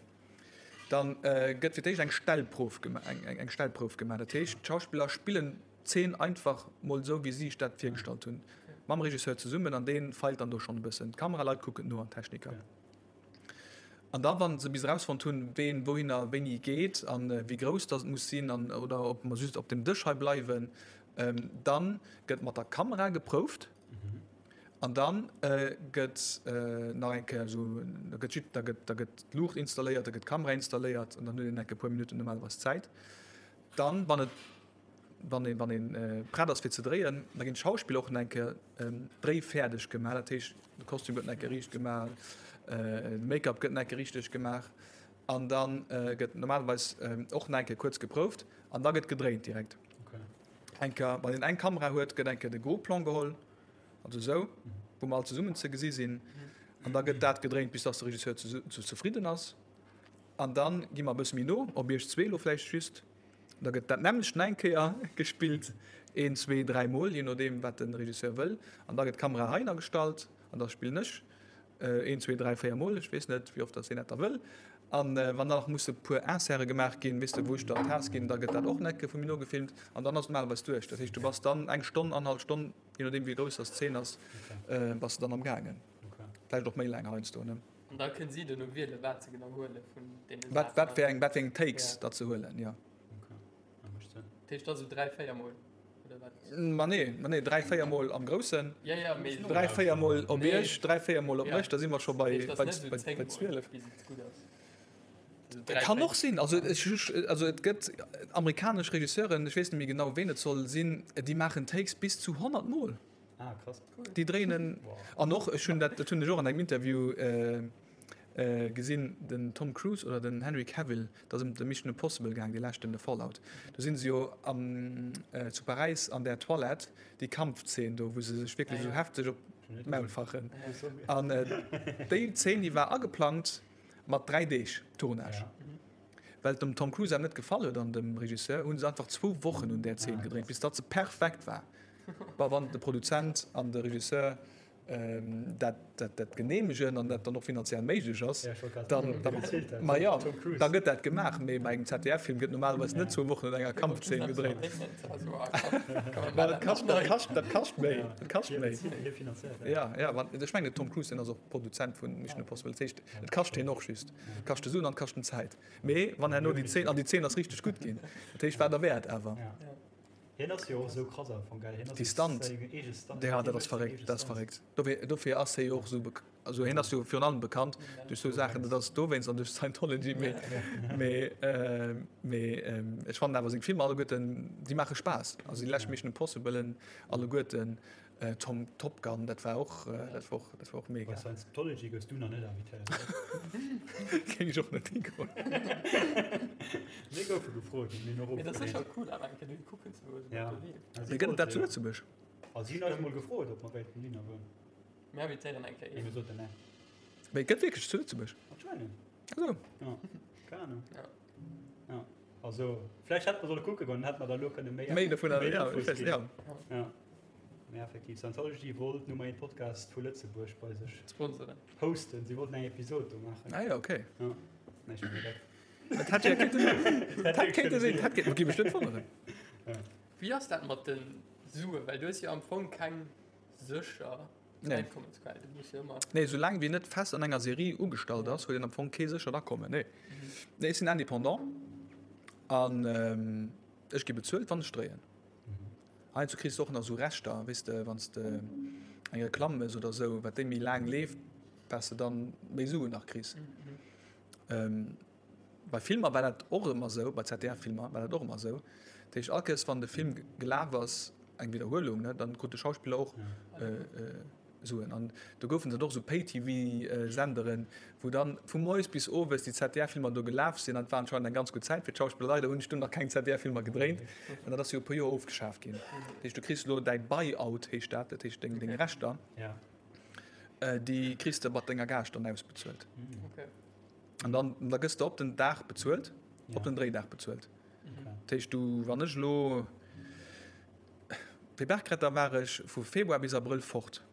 dann gëtt fir d'éischt eng Stellprouf gemaach, eng eng Stellprouf gemaach. Dat heescht, d'Schauspiller spillen d'Zeen einfach mol esou, wéi si sech dat virgestallt hunn, mam Regisseur zesummen an dee feilt dann do schonn e bëssen. D'Kameraleit kucken no an d'Techniker. An da wa se bis erausfonnt hunn, ween wouhinner wéini geet a wéi grouss datt et muss sinn an oder ob mer just op dem Dësch hei bleiwen, dann gëtt mat der Kamera geprouft an dann gëtt nach eng Kéier esou, da gëtt jidd, da gëtt, da gëtt d'Luucht installéiert, da gëtt d'Kamera installéiert an dann huet een enk e puer Minutten normalerweis Zäit. Dann, wann et wann een, wann een prett ass fir ze dréien, da ginn d'Schauspiller och nach eng Kéier dréifäerdeg gemaach. Dat heescht, de Kostüm gëtt nach eng Kéier riicht gemaach, de Make-up gëtt nach eng Kéier richteg gemaach an da gëtt normalerweis och nach eng Kéier kuerz geprouft an da gëtt gedréint direkt. Eng Kéier, wann een eng Kamera huet, gëtt eng Kéier de Gros Plan geholl, also esou, wou mer all zesummen ze gesi sinn an da gëtt dat gedréint, bis dass de Regisseur zefridden ass an da gi mer e bësse méi no op iech zwee elo vläicht just. Da gëtt dat nämmlecht nach eng Kéier gespillt, een, zwee, dräi Mol, jee nodeem wat de Regisseur wëll. An da gëtt d'Kamera heihinner gestallt an da spillen ech een, zwee, dräi, véier Mol, ech weess net, wéi oft datt hien dat da wëll. An wann dann nach musse puer Inserte gemaach ginn, weess de, wou ech dann d'Taass ginn, da gëtt dat och nach eng Kéier vu mir nogefilmt an dann ass et normalerweis duerch. Dat heescht, du bass dann eng Stonn, annerhallef Stonn, jee nodeem wéi grouss datt d'Zeen ass, bass de dann am gaangen. Vläicht och méi laang heiansdo, ne? An da kënnen si duerno wielen, wat se genau huele vun deene Saachen. Wat, wat fir eng, wat fir eng Takes ja. dat se huelen, ja. Okay. Ja, mécht Sënn. Dat heescht da sou 3, 4 Mol, oder wat? Ma nee, ma nee, 3, 4 Mol am Groussen. Ja, ja, mee. 3, 4 Mol op nee. Iech, 3, 4 Mol op ja. mech, da si mer scho bei, bei, bei, bei 12. Bis et gutt ass. Kann och sinn. Also, ech, also et gëtt amerikanesch Regisseuren, ech weess net méi genau, ween et soll sinn, déi maachen Takes bis zu 100 Mol. Ah, krass. Déi dréinen en. An och, ech hunn dat, dat hunn ech och an engem Interview gesinn, den Tom Cruise oder den Henry Cavill, dat ass ëm de Mission Impossible gaang, dee leschten, de Fallout. Do sinn se jo am, zu Paräis an där Toilette, déi Kampfzeen do, wou se sech wierklech esou hefteg op d'Maul fachen. An déi Zeen, déi war ageplangt mat 3 Deeg Tournage. Well et dem Tom Cruise awer net gefall huet an dem Regisseur, hu se einfach zwou Wochen un där Zeen gedréint, bis datt se perfekt war. Bon, wann de Produzent an de Regisseur dat, dat, dat geneemegen an dat dann och finanziell méiglech ass, dann, dann, ma jo, da gëtt dat gemaach. Mee bei engem ZDF-Film gëtt normalerweis net zwou Wochen un enger Kampfzeen gedréint. Well dat kascht, dat kascht, dat kascht méi. Dat kascht méi. Ja, ja, wann, ech mengen, de Tom Cruise, deen ass och Produzent vun Mission Impossible. Dat heescht, et kascht hien och just. Et kascht de Suen an et kascht en Zäit. Mee wann herno déi Zeen, an déi Zeen ass richteg gutt ginn, dat heescht, war derwäert awer. Hien ass jo och esou krass am Fong, gell? Hien ass Déi Stunt, säin eege Stunt. ja, dat ass verréckt, dat ass verréckt. Dofir, dofir ass hie jo och esou bek-, also hien ass jo virun allem bekannt duerch esou Saachen, dat ass dowéinst an duerch Scientology, mee, mee, mee ech fannen awer seng Filmer alleguerten, déi maache Spaass. Also déi lescht Mission Impossiblen alleguerten, Tom Top Gun, dat war och, dat war och, dat war och mega. Bei Scientology goufs du nach net invitéiert, oder? Géing ech och net higoen. Mir goufe gefrot, mir hunn och Mee dat ass ofgeleent. sécher cool awer eng Kéier dohi kucken ze goen, Ja. wat do leeft. Also Mee si gëtt et dat wollte zu jo. Lëtzebuerg? Also si hunn eis mol gefrot, ob mer wéilten dohinner goen. Mir invitéieren eng Kéier Mee een. mir soten nee. Mee et gëtt wierklech zu Lëtzebuerg? Anscheinend. Esou. Ja, keng Ahnung. Ja. Ja. Also, vläicht hätte mer solle kucke goen, dann hätte mer da elo kënne méi, Méi dovunner, méi ja, Infos ech weess, ginn. ja. Ja. Mee effektiv, Scientology wollt Nummer 1 Podcast vu Lëtzebuerg bei sech Sponsoren. hosten. Si wollten eng Episod do maachen. Ah ja, okay. Ja. Nee, ech mengen dat. Dat hätt jo kéinte sinn. Dat hätt kéinte sinn. Dat hätt géif mech net wonneren. Wéi ass dat mat de Suen? Well du hues jo am Fong keng sécher Einkommensquell. Du muss jo ëmmer. Nee, soulaang wéi net fest an enger Serie ugestallt ass, huet een am Fong kee séchert Akommen. Nee. Nee, ech sinn Indépendant an ech gi bezuelt, wann ech dréien. Heiansdo kriss de och nach esou Rechter, weess de, wann s de eng Reklamm méchs oder esou, wat déi méi laang leeft, wat s de dann méi Suen nach kriss. Bei Filmer war dat och ëmmer esou, bei ZDF-Filmer war dat och ëmmer esou. Dat heescht, all Kéiers wann de Film gelaf ass, eng Widderhuelung, ne, dann krut de Schauspiller och Suen. An do goufen et och esou Pay-TV-Senderen, wou dann vu moies bis owes déi ZDF-Filmer do gelaf sinn. An et war anscheinend eng ganz gutt Zäit fir d'Schauspiller. Leider hunn ech dunn nach keng ZDF-Filmer gedréint, well dat ass jo e puer Joer ofgeschaaft ginn. Dat heescht, du kriss elo däi Buy-out, heescht dat, dat heescht deng Rechter, déi kriss de mat denger Gage dann ausbezuelt. An dann da gëss de op den Dag bezuelt, op den Dréidag bezuelt. Dat heescht, du, wann ech elo fir Bergretter war ech vu Februar bis Abrëll fort.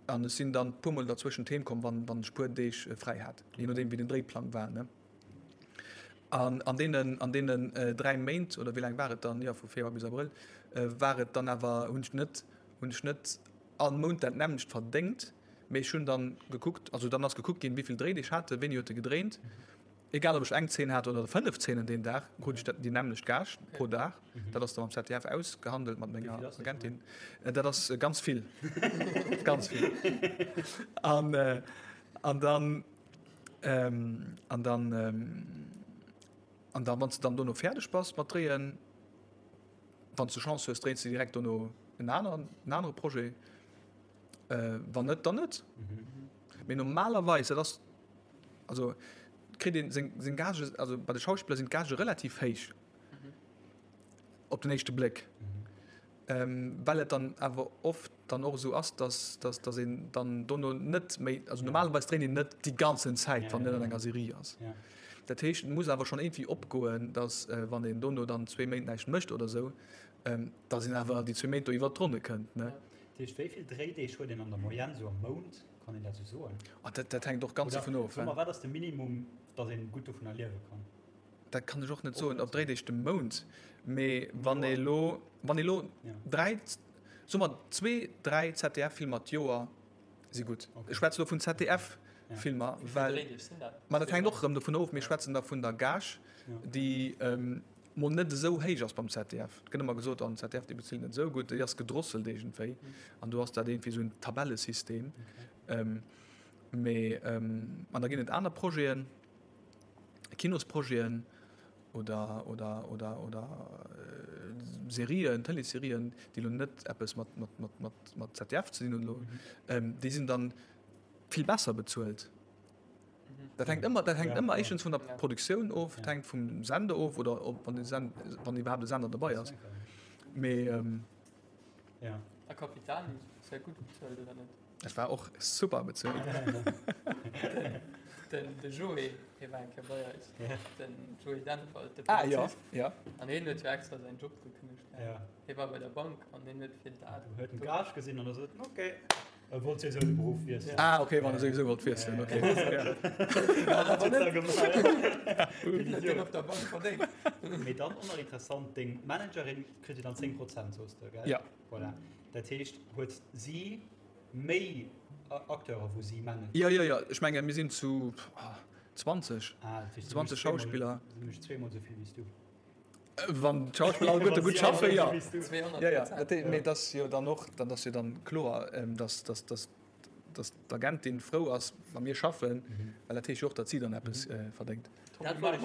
An ech sinn dann puermol derzwëschent heem komm, wann, wann ech puer Deeg fräi hat, je nodeem wéi den Dréiplang war, ne. An an deenen, an deenen 3 Méint, oder wéi laang war et dann, jo vu Februar bis Abrëll, war et dann awer, hunn ech net, hunn ech net all Mount dat nämmlecht verdéngt, Mee ech hunn dann gekuckt, also dann ass gekuckt ginn, wéi vill Dréideeg hat e, wéini huet e gedréint. Egal ob ech eng Zeen hat oder 5 Zeenen deen Dag, krut ech déi nämmlecht Gage pro Dag. Dat ass da mam ZDF ausgehandelt mat menger Agentin. Dat ass ganz vill, ganz vill. An, an dann, an dann, an dann, wann s de dann dono fäerdeg bass mat dréien, wann s de Chance hues, dréins de direkt dono en aneren, en anere Projet. Wann net, dann net. Mee normalerweis, dat ass, also kritt een seng, seng Gage, also bei de Schauspiller sinn d'Gagë relativ héich op den éischte Bléck. Well et dann awer oft dann och esou ass, dass, dass, dass een dann dono net méi, also normalerweis dréint een net déi ganzen Zäit, wann net an enger Serie ass. Dat heescht, et muss awer schonn iergendwéi opgoen, dass wann een dono dann zwee Méint näischt mécht oder esou, dass een awer déi zwee Méint do iwwert d'Ronne kënnt, ne? Dat heescht, wéi vill Dréideeg huet een an der Moyenne esou am Mount? Kann een dat esou soen? Oh, dat, dat hänkt och ganz dovun of. Oder soe mer, wat ass de Minimum, dass een gutt dovunner liewe kann? Dat kann ech och net soen, op Dréideeg de Mount. Mee wann ee lo, wann ee lo dräi, soe mer zwee, dräi ZDF-Filmer d'Joer si gutt. Ech schwätze lo vun ZDF-Filmer, well. Wéi vill Dréideeg sinn dat? Ma dat hänkt och erëm dovun of. Mir schwätzen da vun der Gage, déi mol net esou héich ass beim ZDF. Et gëtt ëmmer gesot, oh den ZDF dee bezilt net esou gutt, déi ass gedrosselt iergendwéi an do ass dat iergendwéi esou en Tabellesystem. Mee an da ginn et aner Projeten, Kinosprojeten oder oder oder oder Serien, Tëleesserien, déi elo net eppes mat mat mat mat mat ZDF ze dinn hunn elo, déi sinn dann vill besser bezuelt. Dat hänkt ëmmer, dat hänkt ëmmer éischtens vun der Produktioun of, et hänkt vum Sender of oder ob wann de Send, wann iwwerhaapt e Sender dobei ass. Mee ähm, Ja. A Capitani ass ja gutt bezuelt, oder net? Dat war och super bezuelt. Den, de Joé, hie war eng Kéier bei eis. Ja. Den Joé Dennwald, de Ah, ja, Polizist. ja. An hien huet jo extra säin Job gekënnegt. Ja. Hie war bei der Bank an hien huet fir dat. Huet den Gage gesinn an da sot en, okay. E wollt souwisou de Beruff wiesselen. Ah, okay, wann e souwisou wollt wiesselen, okay. Wéi op der Bank verdéngt. Mee dann och nach interessant, deng Managerin kritt jo dann 10 Prozent, soos de, gell? Ja. Voilà. Dat heescht, huet si méi Acteure wou si managt? Jo, jo, jo. Ech menge mir sinn zu 20, 20 Schauspiller. Si mécht zweemol esou vill wéi s du. Wann d'Schauspiller alleguerte gutt schaffen, jo. Jo, jo, dat, mee et ass jo dann och, dann ass jo dann kloer, dass, dass, dass, dass d'Agentin frou ass, wa mir schaffen, well dat heescht jo och, datt si dann eppes verdéngt. Dat wollt ech,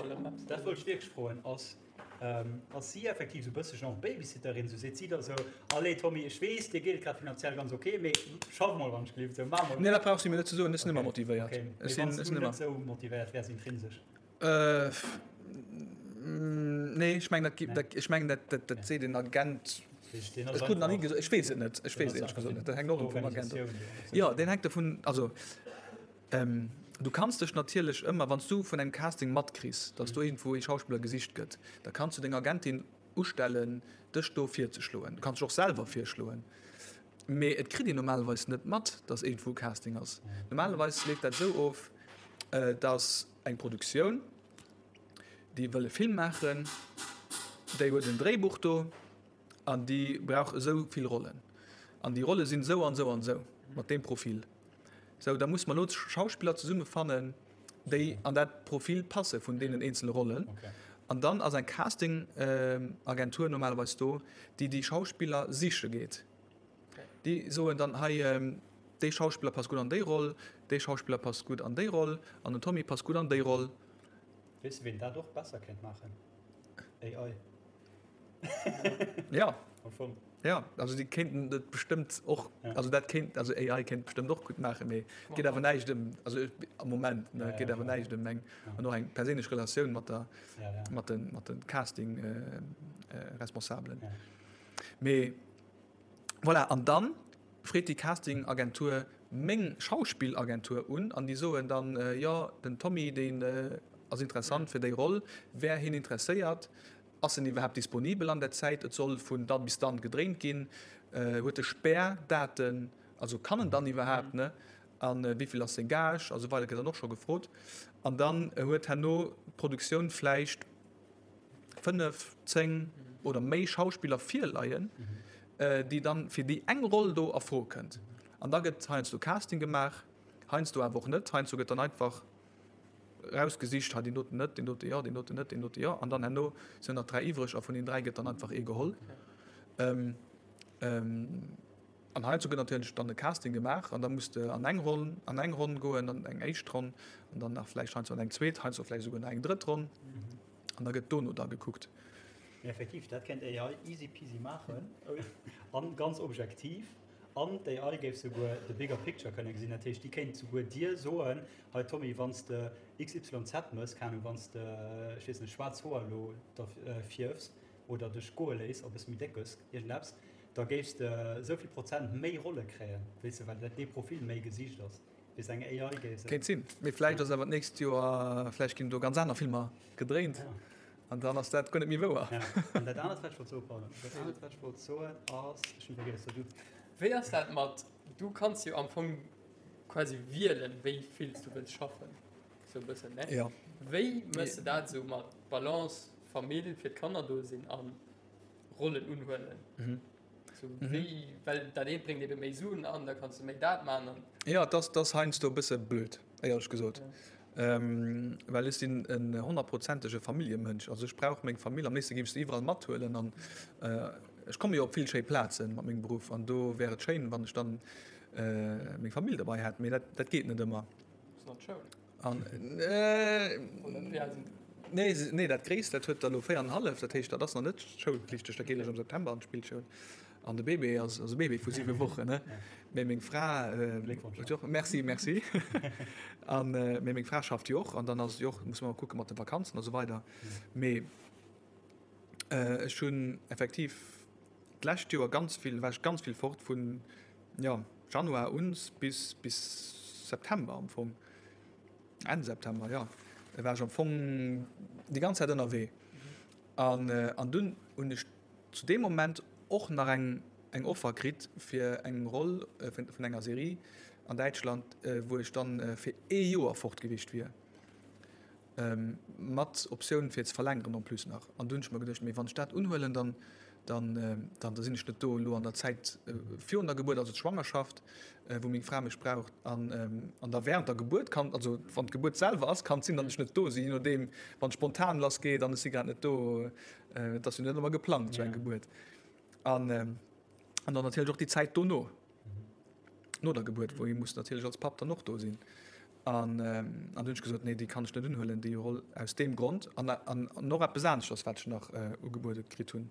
dat wollt ech wierklech froen. Ass, ass si effektiv esou e bësse genre Babysitterin? Esou seet si da esou, Allez Tommy, ech weess, dir geet et grad finanziell ganz ok, mee schaff mol wann ech gelift, esou, maach mol. Nee, dat brauch si mir net ze soen, ech sinn ëmmer motivéiert. Okay, mee wann s du net esou motivéiert wäers intrinsesch? Nee, ech mengen, dat, ech mengen, dat, dat, dat seet en Agent. Ech krut nach ni gesot, ech weess et net, ech weess et éierlech gesot net. Dat hänkt och erëm vum Agent of. Jo, deen hänkt dovun, also du kanns dech natierlech ëmmer, wann s du vun engem Casting matkriss, datt do iergendwou ee Schauspiller gesicht gëtt, da kanns du deng Agentin ustellen, dech do virzeschloen. Du kanns dech och selwer virschloen. Mee et kritt een normalerweis net mat, datt iergendwou e Casting ass. Normalerweis leeft dat esou of. Et ass eng Produktioun, déi wëll e Film maachen, déi huet en Dréibuch do an déi brauch esou vill Rollen. An déi Rolle sinn esou an esou an esou, mat deem Profil. Sou, da muss mer elo Schauspiller zesummefannen, déi an dat Profil passe vun deenen eenzele Rollen. An dann ass eng Casting-Agentur normalerweis do, déi déi Schauspiller siche geet. Déi soen dann, hei, dee Schauspiller passt gutt an déi Roll, dee Schauspiller passt gutt an déi Roll an den Tommy passt gutt an déi Roll. Weess de, ween dat och besser kéint maachen? AI. Ja. Am Fong. Ja, also déi kéinten dat bestëmmt och, also dat kéint, also AI kéint bestëmmt och gutt maachen, mee et geet awer näischt ëm, also am Moment, ne, et geet awer näischt ëm eng, an och eng perséinlech Relatioun mat der, mat de, mat de Casting-Responsabelen. Mee voilà, an dann freet déi Casting-Agentur meng Schauspillagentur un an déi soen dann, jo, den Tommy, deen ass interessant fir déi Roll, wär hien interesséiert? Ass en iwwerhaapt disponibel an der Zäit? Et soll vun dann bis dann gedréint ginn. Huet e Spärdaten? Also kann en dann iwwerhaapt, ne? A wéi vill ass seng Gage? A sou weider gëtt dann och scho gefrot. An dann huet herno d'Produktioun vläicht 5, 10 oder méi Schauspiller virleien, déi dann fir déi eng Roll do a Fro kënnt. An da gëtt heiansdo Casting gemaach, heiansdo awer och net. Heiansdo gëtt dann einfach rausgesicht, hei deen doten net, deen dote jo, deen doten net, deen dote jo. An dann herno sinn nach 3 iwwreg a vun den 3 gëtt dann einfach ee geholl. An heiansdo gëtt natierlech dann e Casting gemaach an da muss de an eng Ronn, an eng Ronn goen, an eng éischt Ronn an dann nach vläicht heiansdo an eng zweet, heiansdo vläicht esouguer nach eng drëtt Ronn an da gëtt dono da gekuckt. Mee effektiv, dat kéint AI easy peasy maachen an ganz objektiv. An d'AI géif souguer the bigger picture kënne gesinn. Dat heescht, déi kéint souguer dir soen, hei Tommy, wann s de XYZ mëss, keng Ahnung, wann s de, ech weess net, schwaarz Hoer elo der fierfs oder dech goe léiss a bësse méi déck gëss, iergendeppes, da géifs de esou vill Prozent méi Rolle kréien, weess de, well dat dee Profil méi gesicht ass. Weess eng AI géif se. Kéint sinn. Mee vläicht ass awer d'nächst Joer, vläicht ginn do ganz aner Filmer gedréint an dann ass dat guer net méi wouer. Ja. An dat anert, wat ech wollt soen, pardon, dat anert, wat ech wollt soen, ass, ech hunn vergiess, so du. Wéi ass dat mat, du kanns jo am Fong quasi wielen, wéi vill s du wëlls schaffen, sou e bëssen, ne? Ja. Wéi méchs de dat esou mat Balance, Famill, fir d'Kanner do sinn an Rollen unhuelen? Mhm. So, wéi, well dat eent bréngt ebe méi Suen an, da kanns du méi dat man an. Ja, et ass, et ass heiansdo e bësse blöd, éierlech gesot. Well ech sinn en honnertprozentege Familljemënsch. Also ech brauch meng Famill, am léifste géif ech se iwwerall mathuelen an ech komme jo op vill schéi Plaze mat mengem Beruff an do wär et schéin, wann ech dann meng Famill derbei hätt, mee dat, dat geet net ëmmer. Ass nach d'Schoul? An nee, nee, dat Gréisst, dat huet der elo 4 an hallef, dat heescht, dat ass nach net schoulpflichteg, dat geet eréischt am September an d'Spillschoul. An de Bébé ass, ass e Bébé vu 7 Wochen, ne? Mee meng Fra huet jo och, merci, merci. An mee meng Fra schafft jo och an dann ass et jo och, muss mer kucke mat de Vakanzen a sou weider. Mee ech hunn effektiv d'lescht Joer ganz vill, war ech ganz vill fort vun, jo, Januar un bis, bis September am Fong. Enn September, jo, war ech am Fong déi ganz Zäit ënnerwee. An, an dunn hunn ech zu deem Moment och nach eng, eng Offer kritt fir eng Roll vun, vun enger Serie an Däitschland, wou ech dann fir ee Joer fort gewiescht wier. Mat Optioun fir ze verlängeren en plus nach. An du hunn ech mer geduecht, mee wann ech dat unhuelen, dann, dann, dann da sinn ech net do elo an der Zäit virun der Gebuert, also d'Schwangerschaft, wou meng Fra mech braucht, an, an da während der Gebuert kann, also wann d'Gebuert selwer ass, kann et sinn, datt ech net do sinn, je nodeem, wann spontan lass geet an ech si grad net do, et ass jo net ëmmer geplangt esou eng Gebuert. An, an dann natierlech och déi Zäit dono. No der Gebuert, wou ee muss natierlech als Papp dann och do sinn. An an hunn ech gesot, nee, déi kann ech net unhuelen, déi Roll aus deem Grond. An an och eppes aneschters, wat ech nach ugebuede kritt hunn,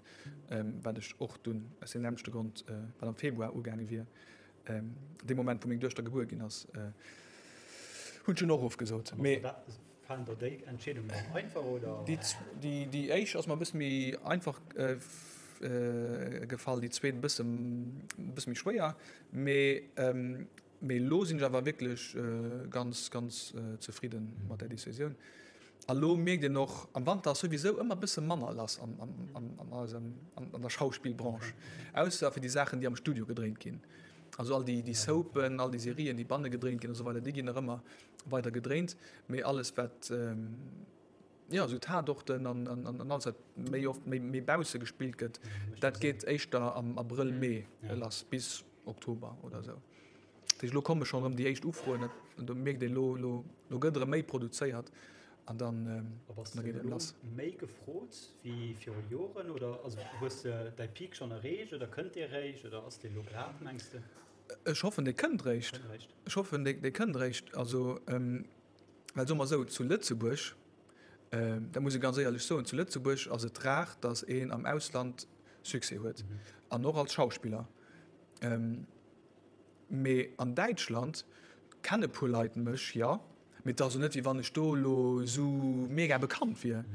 wat ech och dunn aus deem nämmlechte Grond, wat am Februar ugaange wier, dee Moment, wou meng Duechter gebuer ginn ass, hunn ech dunn och ofgesot. Mee. Falen der déi Entscheedungen dann einfach oder? Déi déi éischt ass mer e bësse méi einfach gefall, déi zweet e bësse e bësse méi schwéier. Mee mee elo sinn ech awer wierklech ganz ganz zefridde mat där Decisioun. A lo mierkt een och, am Wanter ass souwisou ëmmer e bësse manner lass an an an eisem an der Schauspillbranche, ausser fir déi Saachen déi am Studio gedréint ginn. Also all déi, déi Soapen, all déi Serien, déi banne gedréint ginn a sou weider, déi ginn nach ëmmer weider gedréint. Mee alles wat, jo, esou Tatorten an, an, an alles wat méi oft méi, méi bausse gespillt gëtt, dat geet éischter am Abrëll, Mee lass bis Oktober oder esou. Dat heescht, elo komme schonn erëm déi éischt Ufroen, dat, do mierkt een elo, elo, elo gëtt erëm méi produzéiert an dann, da geet et lass. Méi gefrot wéi viru Joren oder also hues de däi Peak schonn erreecht oder kënnt dee réischt oder ass dee elo grad, mengs de? Ech hoffen, dee kënnt réischt. Ech hoffen, dee kënnt réischt. Also, well soe mer esou, zu Lëtzebuerg, dat muss ee ganz éierlech soen, zu Lëtzebuerg ass et rar, datt een am Ausland Succès huet an och als Schauspiller. Mee an Däitschland kenne puer Leit mech, jo, mee et ass elo net, wéi wann ech do elo esou mega bekannt wier.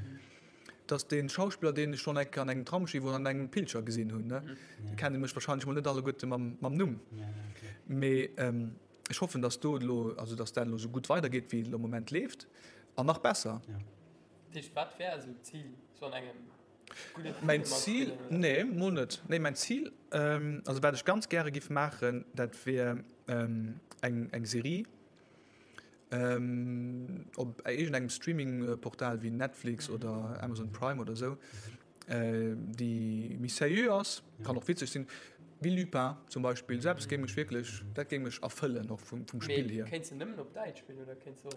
Et ass dee Schauspiller, deen ech schonn eng Kéier an engem Tramsschiff oder an engem Pilcher gesinn hunn, ne. Déi kenne mech warscheinlech mol net alleguerte mam Numm. Mee ech hoffen, datt do elo, also datt dat elo esou gutt weidergeet, wéi et elo am Moment leeft an nach besser. Dat heescht, wat wär esou d'Zil, sou an engem Mäin Zil, nee, mol net. Nee, mäin Zil, also wat ech ganz gäre giff maachen, dat wier eng eng Serie op iergendengem Streaming-Portal wéi Netflix oder Amazon Prime oder esou, déi méi sérieux ass, kann och witzeg sinn, wéi Lupin zum Beispill. Esou eppes géing mech wierklech, dat géing mech erfëllen och vum vum Spill hier. Mee kéints de nëmmen op Däitsch spillen oder kéints de och?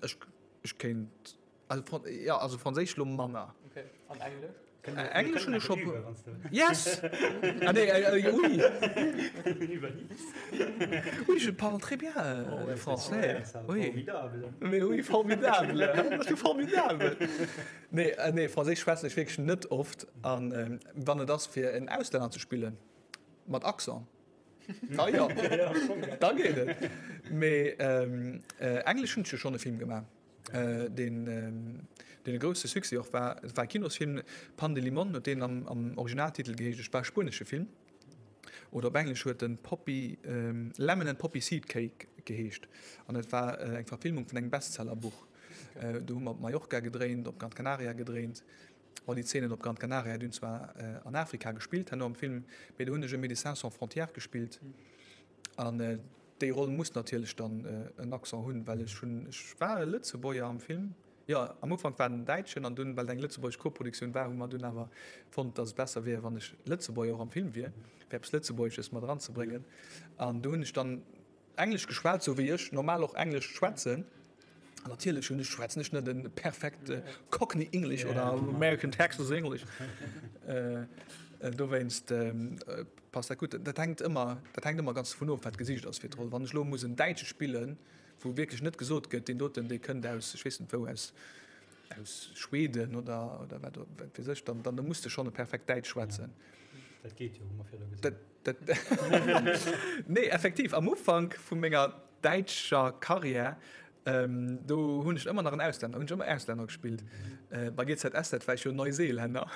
Ech ech kéint. Also, Fran ja, also Franséisch lo manner. Okay. An Englesch? Englesch hunn ech scho. Yes! Ah nee, äh, oui! Oui, je parle très bien oh, ouais, français. Oui. Formidable. Mais oui, formidable. formidable. Nee, äh, nee, Franséisch schwätzen ech wierklech net oft. An ähm, wann et ass fir en Auslänner ze spillen, mat Accent. Da jo, da geet et. Mee ähm, äh, Englesch hunn ech jo schonn e Film gemaach. deen deen e grousse Succès och war. Et war e Kinosfilm, Pan de Limón huet deen am am Originaltitel geheescht. Et war e spuenesche Film oder op Englesch huet en Poppy Lemon and Poppy Seed Cake geheescht an et war eng Verfilmung vun engem Bestsellerbuch. Do hu mer op Mallorca gedréint, op Gran Canaria gedréint. Bon, déi Zeenen op Gran Canaria déi hunn zwar an Afrika gespillt herno am Film, mee do hunn ech e Médecins sans frontières gespillt an Déi Roll muss natierlech dann en Accent hunn, well ech hunn, ech war e Lëtzebuerger am Film, jo, am Ufank war en Däitschen an dunn, well et eng lëtzebuergesch Koproduktioun war, hu mer dunn awer fonnt, datt et besser wier, wann ech Lëtzebuerger och am Film wier, fir eppes Lëtzebuergesches mat eranzebréngen. An do hunn ech dann Englesch geschwat, sou wéi ech normal och Englesch schwätzen. An natierlech hunn ech, schwätzen ech net e perfekt Cockney English oder American Texas English. Dowéinst passt dat gutt. Dat hänkt ëmmer, dat hänkt ëmmer ganz dovun of, wat gesicht ass fir d'Roll. Wann ech elo muss en Däitsche spillen, wou wierklech net gesot gëtt, deen doten, dee kënnt aus, ech weess net wou, aus, aus Schweden oder, oder wat, wat weess ech, dann, dann muss de schonn e perfekt Däitsch schwätzen. Dat geet jo, hu mer virdu gesinn. Dat, dat, nee, effektiv, am Ufank vu menger däitscher Karriär, do hunn ech ëmmer nach en Auslänner, hunn ech ëmmer Auslänner gespillt. Bei GZSZ war ech jo Neuseelänner.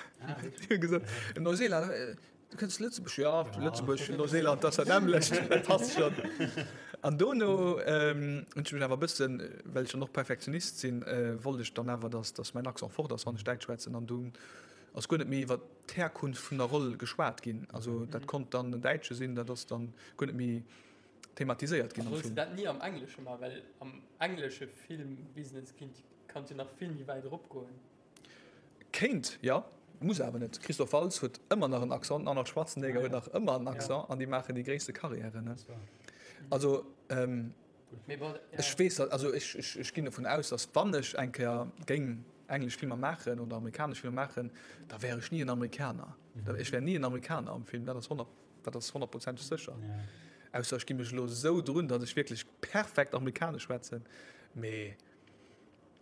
Déi hu gesot, en Neuseelänner, du kënns Lëtzebuerg? Jo, Lëtzebuerg, Neuseeland, dat ass dat nämmlecht, dat passt schonn. An dono hunn ech mech awer e bëssen, well ech dann och Perfektionist sinn, wollt ech dann awer, dass, dass mäin Accent fort ass, wann ech Däitsch schwätzen. An dunn ass guer net méi iwwer d'Herkunft vun der Roll geschwat ginn. Also dat konnt dann en Däitsche sinn, dat ass dann guer net méi thematiséiert ginn am Film. Solls de dat ni am Englesche man, well am englesche Filmbusiness kinnt kanns jo nach vill méi wäit erop goen. Kéint, jo, muss awer net. Christoph Waltz huet ëmmer nach en Accent, den Arnold Schwarzenegger huet nach ëmmer en Accent an déi maachen déi gréisste Karriären. Also ech weess, also ech ech ginn dovun aus, datt wann ech eng Kéier géing englesch Filmer maachen oder amerikanesch Filmer maachen, da wär ech ni en Amerikaner. Ech wär ni en Amerikaner am Film, dat ass 100. Dat ass honnertprozenteg sécher. Ausser ech gi mech elo esou drun, datt ech wierklech perfekt Amerikanesch schwätzen. Mee.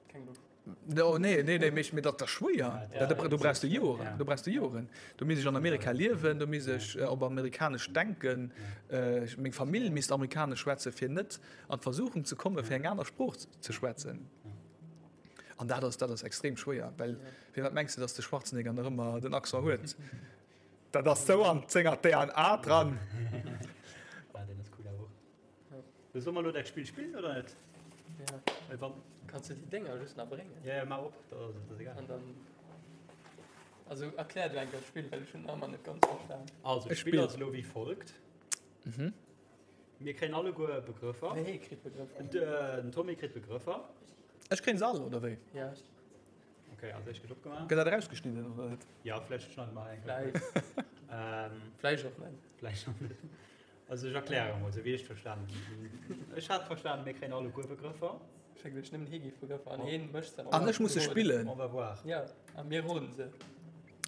Keng Loscht. No, nee, nee, nee, mee, mee dat ass schwéier. Ja, dat, do brauchst du Joren. Ja. Do brauchst du Joren. Do misst ech an Amerika liewen, do misst ech äh, op amerikanesch denken. Äh, meng Famill misst amerikanesch schwätzen, fir net an d'Versuchung ze kommen, fir eng aner Sprooch ze schwätzen. An dat ass, dat ass extrem schwéier, well firwat mengs du, datt de Schwarzenegger nach ëmmer den Accent huet? Dat ass sou an senger DNA dran. Ah, den ass cool awer och. So, soll mer elo dat Spill spillen oder net? Ja. Well wann. Kanns du déi Dénger just nach bréngen? Ja, ja, maach op, da ass et egal. An dann. Also erklär du eng Kéier d'Spill, well ech hunn nach ëmmer net ganz verstan. Also, d'Spill ass elo wéi folgt. Mir kréien alleguer Begrëffer. Nee, hee kritt Begrëffer. Den Tommy kritt Begrëffer. Ech kréien se all, oder wéi? Ja. Okay, also ech gëtt opgemaach. Gëtt dat erausgeschnidden, oder net? Ja, vläicht schneide mer eng Kéier. Vläicht. Ähm, Vläicht och net. Vläicht och net. Also ech erkläre mol, esou wéi ech verstanen hunn. Ech hat verstanen, mir kréien alleguer Begrëffer. Ech hat geduecht, nëmmen hee géif Begrëffer an heen mécht se. An ech muss se spillen. On va voir. Ja, a mir roden se.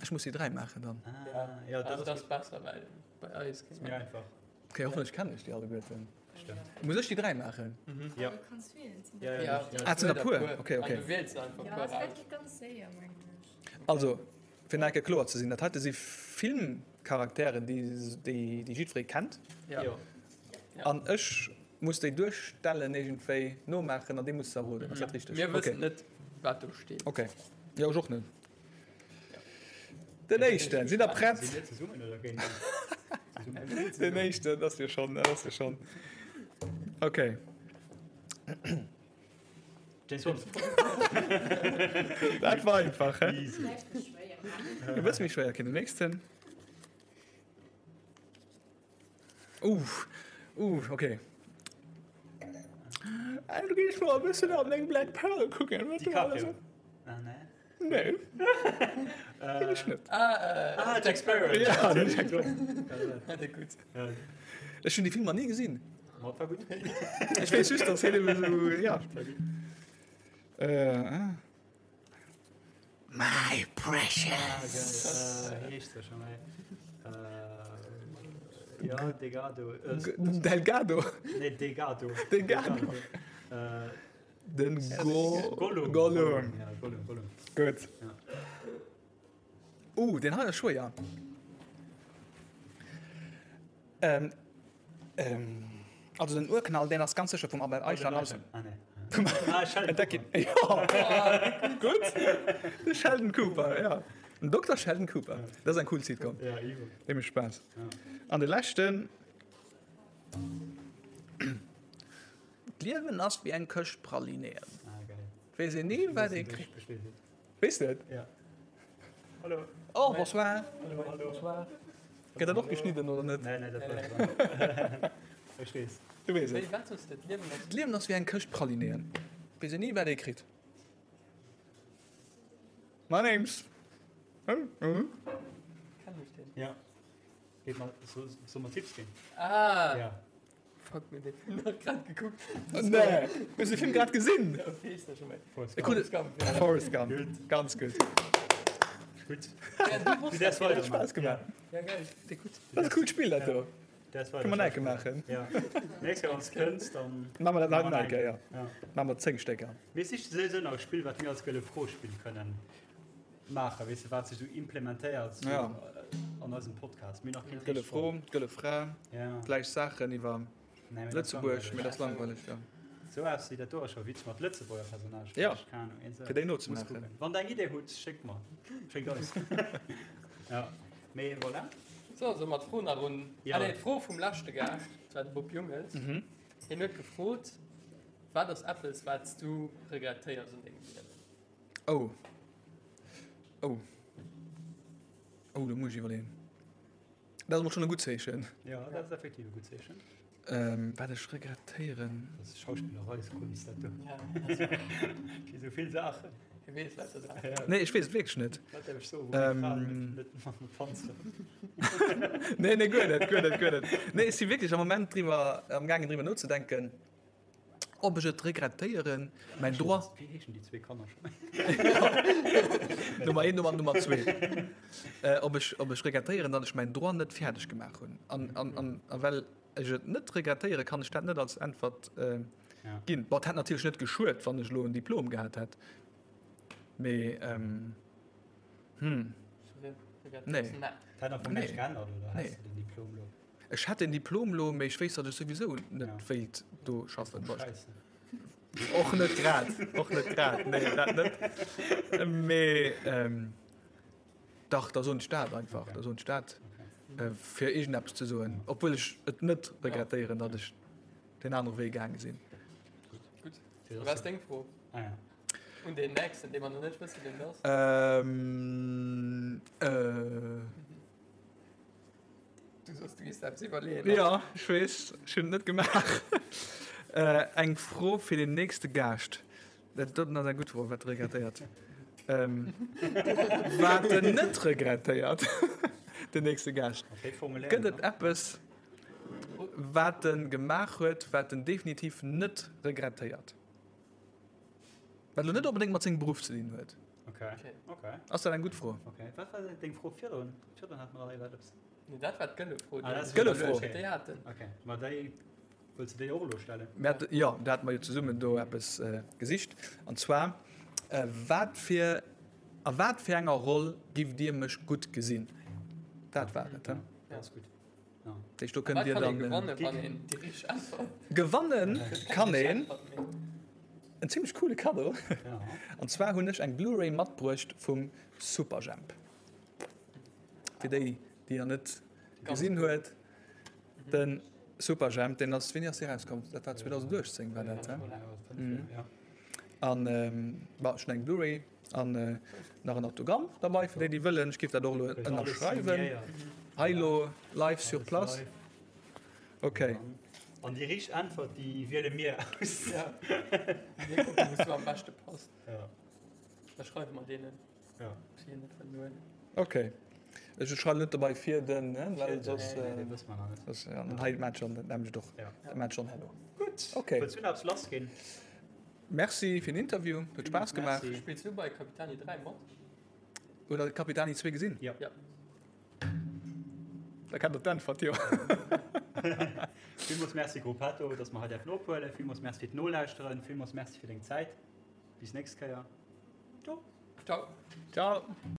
Ech muss déi 3 maachen dann. Ah, ja, dat Also ass dat ass besser, well bei eis gutt. Méi einfach. Okay, hoffentlech kennen ech déi alleguerten. Stëmmt. Muss ech déi 3 maachen? Ja. Du kanns wielen. Et sinn Ja, der ja, puer. ja. Ah, et sinn der puer. Okay, okay. An du wiels einfach Ja, puer dat aus. geet ganz séier, mengen ech. Also, fir nach eng Kéier kloer ze sinn, dat heite si Filmcharakteren, déi, déi, déi jiddweree kennt. Ja. Jo. Ja. An ech muss déi duerstellen, iergendwéi nomaachen an dir musst se erroden. Ass dat richteg? Mir wëssen Okay. net, wat do steet. Okay. Jo, ech och net. Den éischten, sidd der prett? Sinn mir zesummen oder géint zesummen? Den éischten, dat ass jo schonn, dat ass jo schonn. Okay. James Bond. Dat war einfach, hä? Easy. Vläicht méi schwéier maachen. E bësse méi schwéier, okay, den nächsten. Uh, uh, okay. Du gees mol e bëssen an deng Black Pearl kucken, wat do alles. DiCaprio. Ah, nee. Nee. Kenn ech net. Ah, Jack Sparrow. Ja, den Jack Sparrow. Gutt. Ech hunn déi Filmer ni gesinn. Ma war gutt. Ech weess just, dass hien ebe sou, ja. Äh, ah. My precious. Ah, geil. Äh, heescht se schon, ey. Äh, ja, Delgado. Äh, Delgado. nee, Delgado. Delgado. Äh, Den Go Gollum. Gollum. Ja, Gollum, Gollum. Gutt. Ja. Uh, deen hei ass schwéier. Ähm, ähm, also den Urknall, deen ass ganz sécher vum Albert Eichhorn. Also, Ah, nee. Ah, Sheldon Entdeck Cooper. Ja, gutt. De Sheldon Cooper, ja. Den Dokter Sheldon Cooper. Dat ass eng cool Sitcom. Ja, iwwer. Dee mécht Spaass. Ja. An de leschten. D'Liewen ass wéi eng Këscht Pralinéen. Ah, geil. Weess een ni, wat ee kritt. Weess de et? Ja. Hallo. Oh, bonsoir. Hallo, hallo. Bonsoir. Gëtt dat och geschnidden oder net? Nee, nee, dat bleift. Ech weess. Du weess et. Wéi, wat soss de? D'Liewen ass. D'Liewen ass wéi eng Këscht Pralinéen. Weess een ni, wat ee kritt. My name's. Kenn ech deen? Ja. Geet mal, so, soll mer Tipps ginn? Ah! Ja. Fuck, mir den Film nach grad gekuckt. Nee, hues de Film grad gesinn? Ja, wéi heescht der schon méi? Forrest E Gump. gudde Gump, ja. Forrest Gump. Gutt. Ganz gutt. Gutt. Ja, du wosst Du däerfs dat, weider ja. Spaass gemaach. Ja, geil. Dee gutt. Dat ass e coolt Spill, dat do. Däerfs weider Kënne mer nach eng Kéier maachen. Ja. Nächst Kéier, wann s kënns, dann. Maache mer dat nach eng Kéier, ja. Ja. Maache mer 10 Stécker. Mir siche souwisou nach e Spill, wat mir als Gëlle Fro spille kënnen maachen, weess de, wat sech esou implementéiert sou Ja. an eisem Podcast. Mir hunn nach keen Gëlle richtegt Fro, fonnt. gëlle Fra, Ja. gläich Saachen iwwer Nee, mee dat ass Lëtzebuerg, mee dat ass langweileg. langweileg, ja. Sou eppes wéi dat do ass scho witzeg mat Lëtzebuerger Personnagen. Ja. Keng Ahnung, een Fir déi nozemaachen. Muss kucken. Wann der eng Idee hutt, schéckt mer. Schéckt eis. Ja. Mee voilà. So, solle mer d'Fro nach un. Ja. Ah nee, d'Fro vum leschte Gaascht, dat war de Bob Jungels. Mhm. Hien huet gefrot, Wat ass eppes, wat s du regrettéiers un dengem Liewen? Oh. Oh. Oh, do muss ech iwwerleeën. Dat ass emol schonn e gutt Zeechen. Ja, dat ass effektiv e gutt Zeechen. Ähm, wat ech regrettéieren. Dat ass Schauspillereiskunst, dat do. Ja, Wéi sou vill Saachen. Hie weess lauter Saachen. Ja. Nee, ech weess et wierklech net. Wat däerf ech soen, wou meng Fra Ähm. net, net mat mer panzeren? Nee, nee, guer net, guer net, guer net. Nee, ech si wierklech am Moment driwwer, am gaangen driwwer nozedenken. Ob ech et regrettéieren, mäin Droit. Wéi heeschen déi zwee Kanner scho? Nummer 1 Nummer Nummer 2. Ob ech, ob ech regrettéieren, datt ech mäin Droit net fäerdeg gemaach hunn. An, an, an, a well ech et net regrettéieren, kann ech dat net als Äntwert ginn. Bon, et hätt natierlech net geschuet, wann ech elo en Diplom gehat hätt, mee hm, nee. Et hätt am Fong näischt geännert, oder? Nee. Häss de den Diplom elo? Ech hätt den Diplom lo, mee ech wéisst, datt ech souwisou net Ja. wéilt do schaffen. Scheiße. Och net grad, och net grad, nee, dat net. Mee ähm, dach, da soen ech dat einfach, Okay. da soen ech dat, Okay. äh, fir iergendeppes ze soen, obwuel ech et net regrettéieren, datt ech deen anere Wee gaange sinn. Gutt. Wat ass deng Fro? Ah, ja. Un deen nächsten, dee mer nach net wëssen, wien et ass. Ähm, äh. Du soss du gees eppes iwwerleeën. Jo, ech weess, ech hunn et net gemaach. Eng Fro fir den nächste Gaascht. Dat doten ass eng gutt Fro, wat regrettéiert? Wat en net regrettéiert, den nächste Gaascht. Gëtt et eppes, wat en gemaach huet, wat en definitiv net regrettéiert? Wat elo net onbedéngt mat sengem Beruff ze dinn huet. Okay. Okay. Ass dat eng gutt Fro? Okay. Wat war deng Fro virdrun? Virdrun hat mer iwwer eppes. Nee, dat war d'gëlle Fro. Ah, dat Gëlle Fro. Okay. Déi haten. Okay. Ma déi wëlls du déi och elo stellen? Mir hat, jo, do hate mer jo zesummen do eppes äh, gesicht. An zwar, äh, wat fir, a wat fir enger Roll giff Dir mech gutt gesinn? Dat war et, he? Ja, ass gutt. Deech do kënnt Dir dann. Gewanne wann een déi richteg Äntwert. Gewanne kann een en zimmlech coole Kaddo. An zwar hunn ech eng Blu-ray matbruecht vum Superjhemp. Fir déi, déi nach net gesinn huet, de Superjhemp, deen ass, wéini ass dee rauskomm? Dat war 2018 war dat, he? An bon, ech hunn eng Blu-ray. An nach en Autogramm derbei fir déi déi wëllen. Ech géif dat och elo ënnerschreiwen. Hei elo live sur place. Ok. An déi richteg Äntwert déi wiele mir aus. Ja. Mir kucken wou s du am beschte passt. Ja. Da schreiwe mer deenen. Ja. Ob si en net wëllen huelen. Ok. Ech schreiwen net dobei fir den, well soss. Nee, nee, wësse mer nach net. Soss, ja, dann hei maacht schonn, dat nämlecht och. Ja. Dat maacht schonn herno. Gutt. Ok. Wëlls du nach eppes lassginn? Merci fir den Interview, huet Spaass gemaach. Spills du bei Capitani 3 mat? Huet der Capitani 2 gesinn? Jo. Ja. Da kennt der d'Äntwert jo. Villmools Merci Gruppetto, dass mer hei däerfen ophuelen. Villmools Merci fir d'Nolauschteren. Villmools Merci fir deng Zäit. Bis nächst Kéier. Ciao. Ciao. Ciao.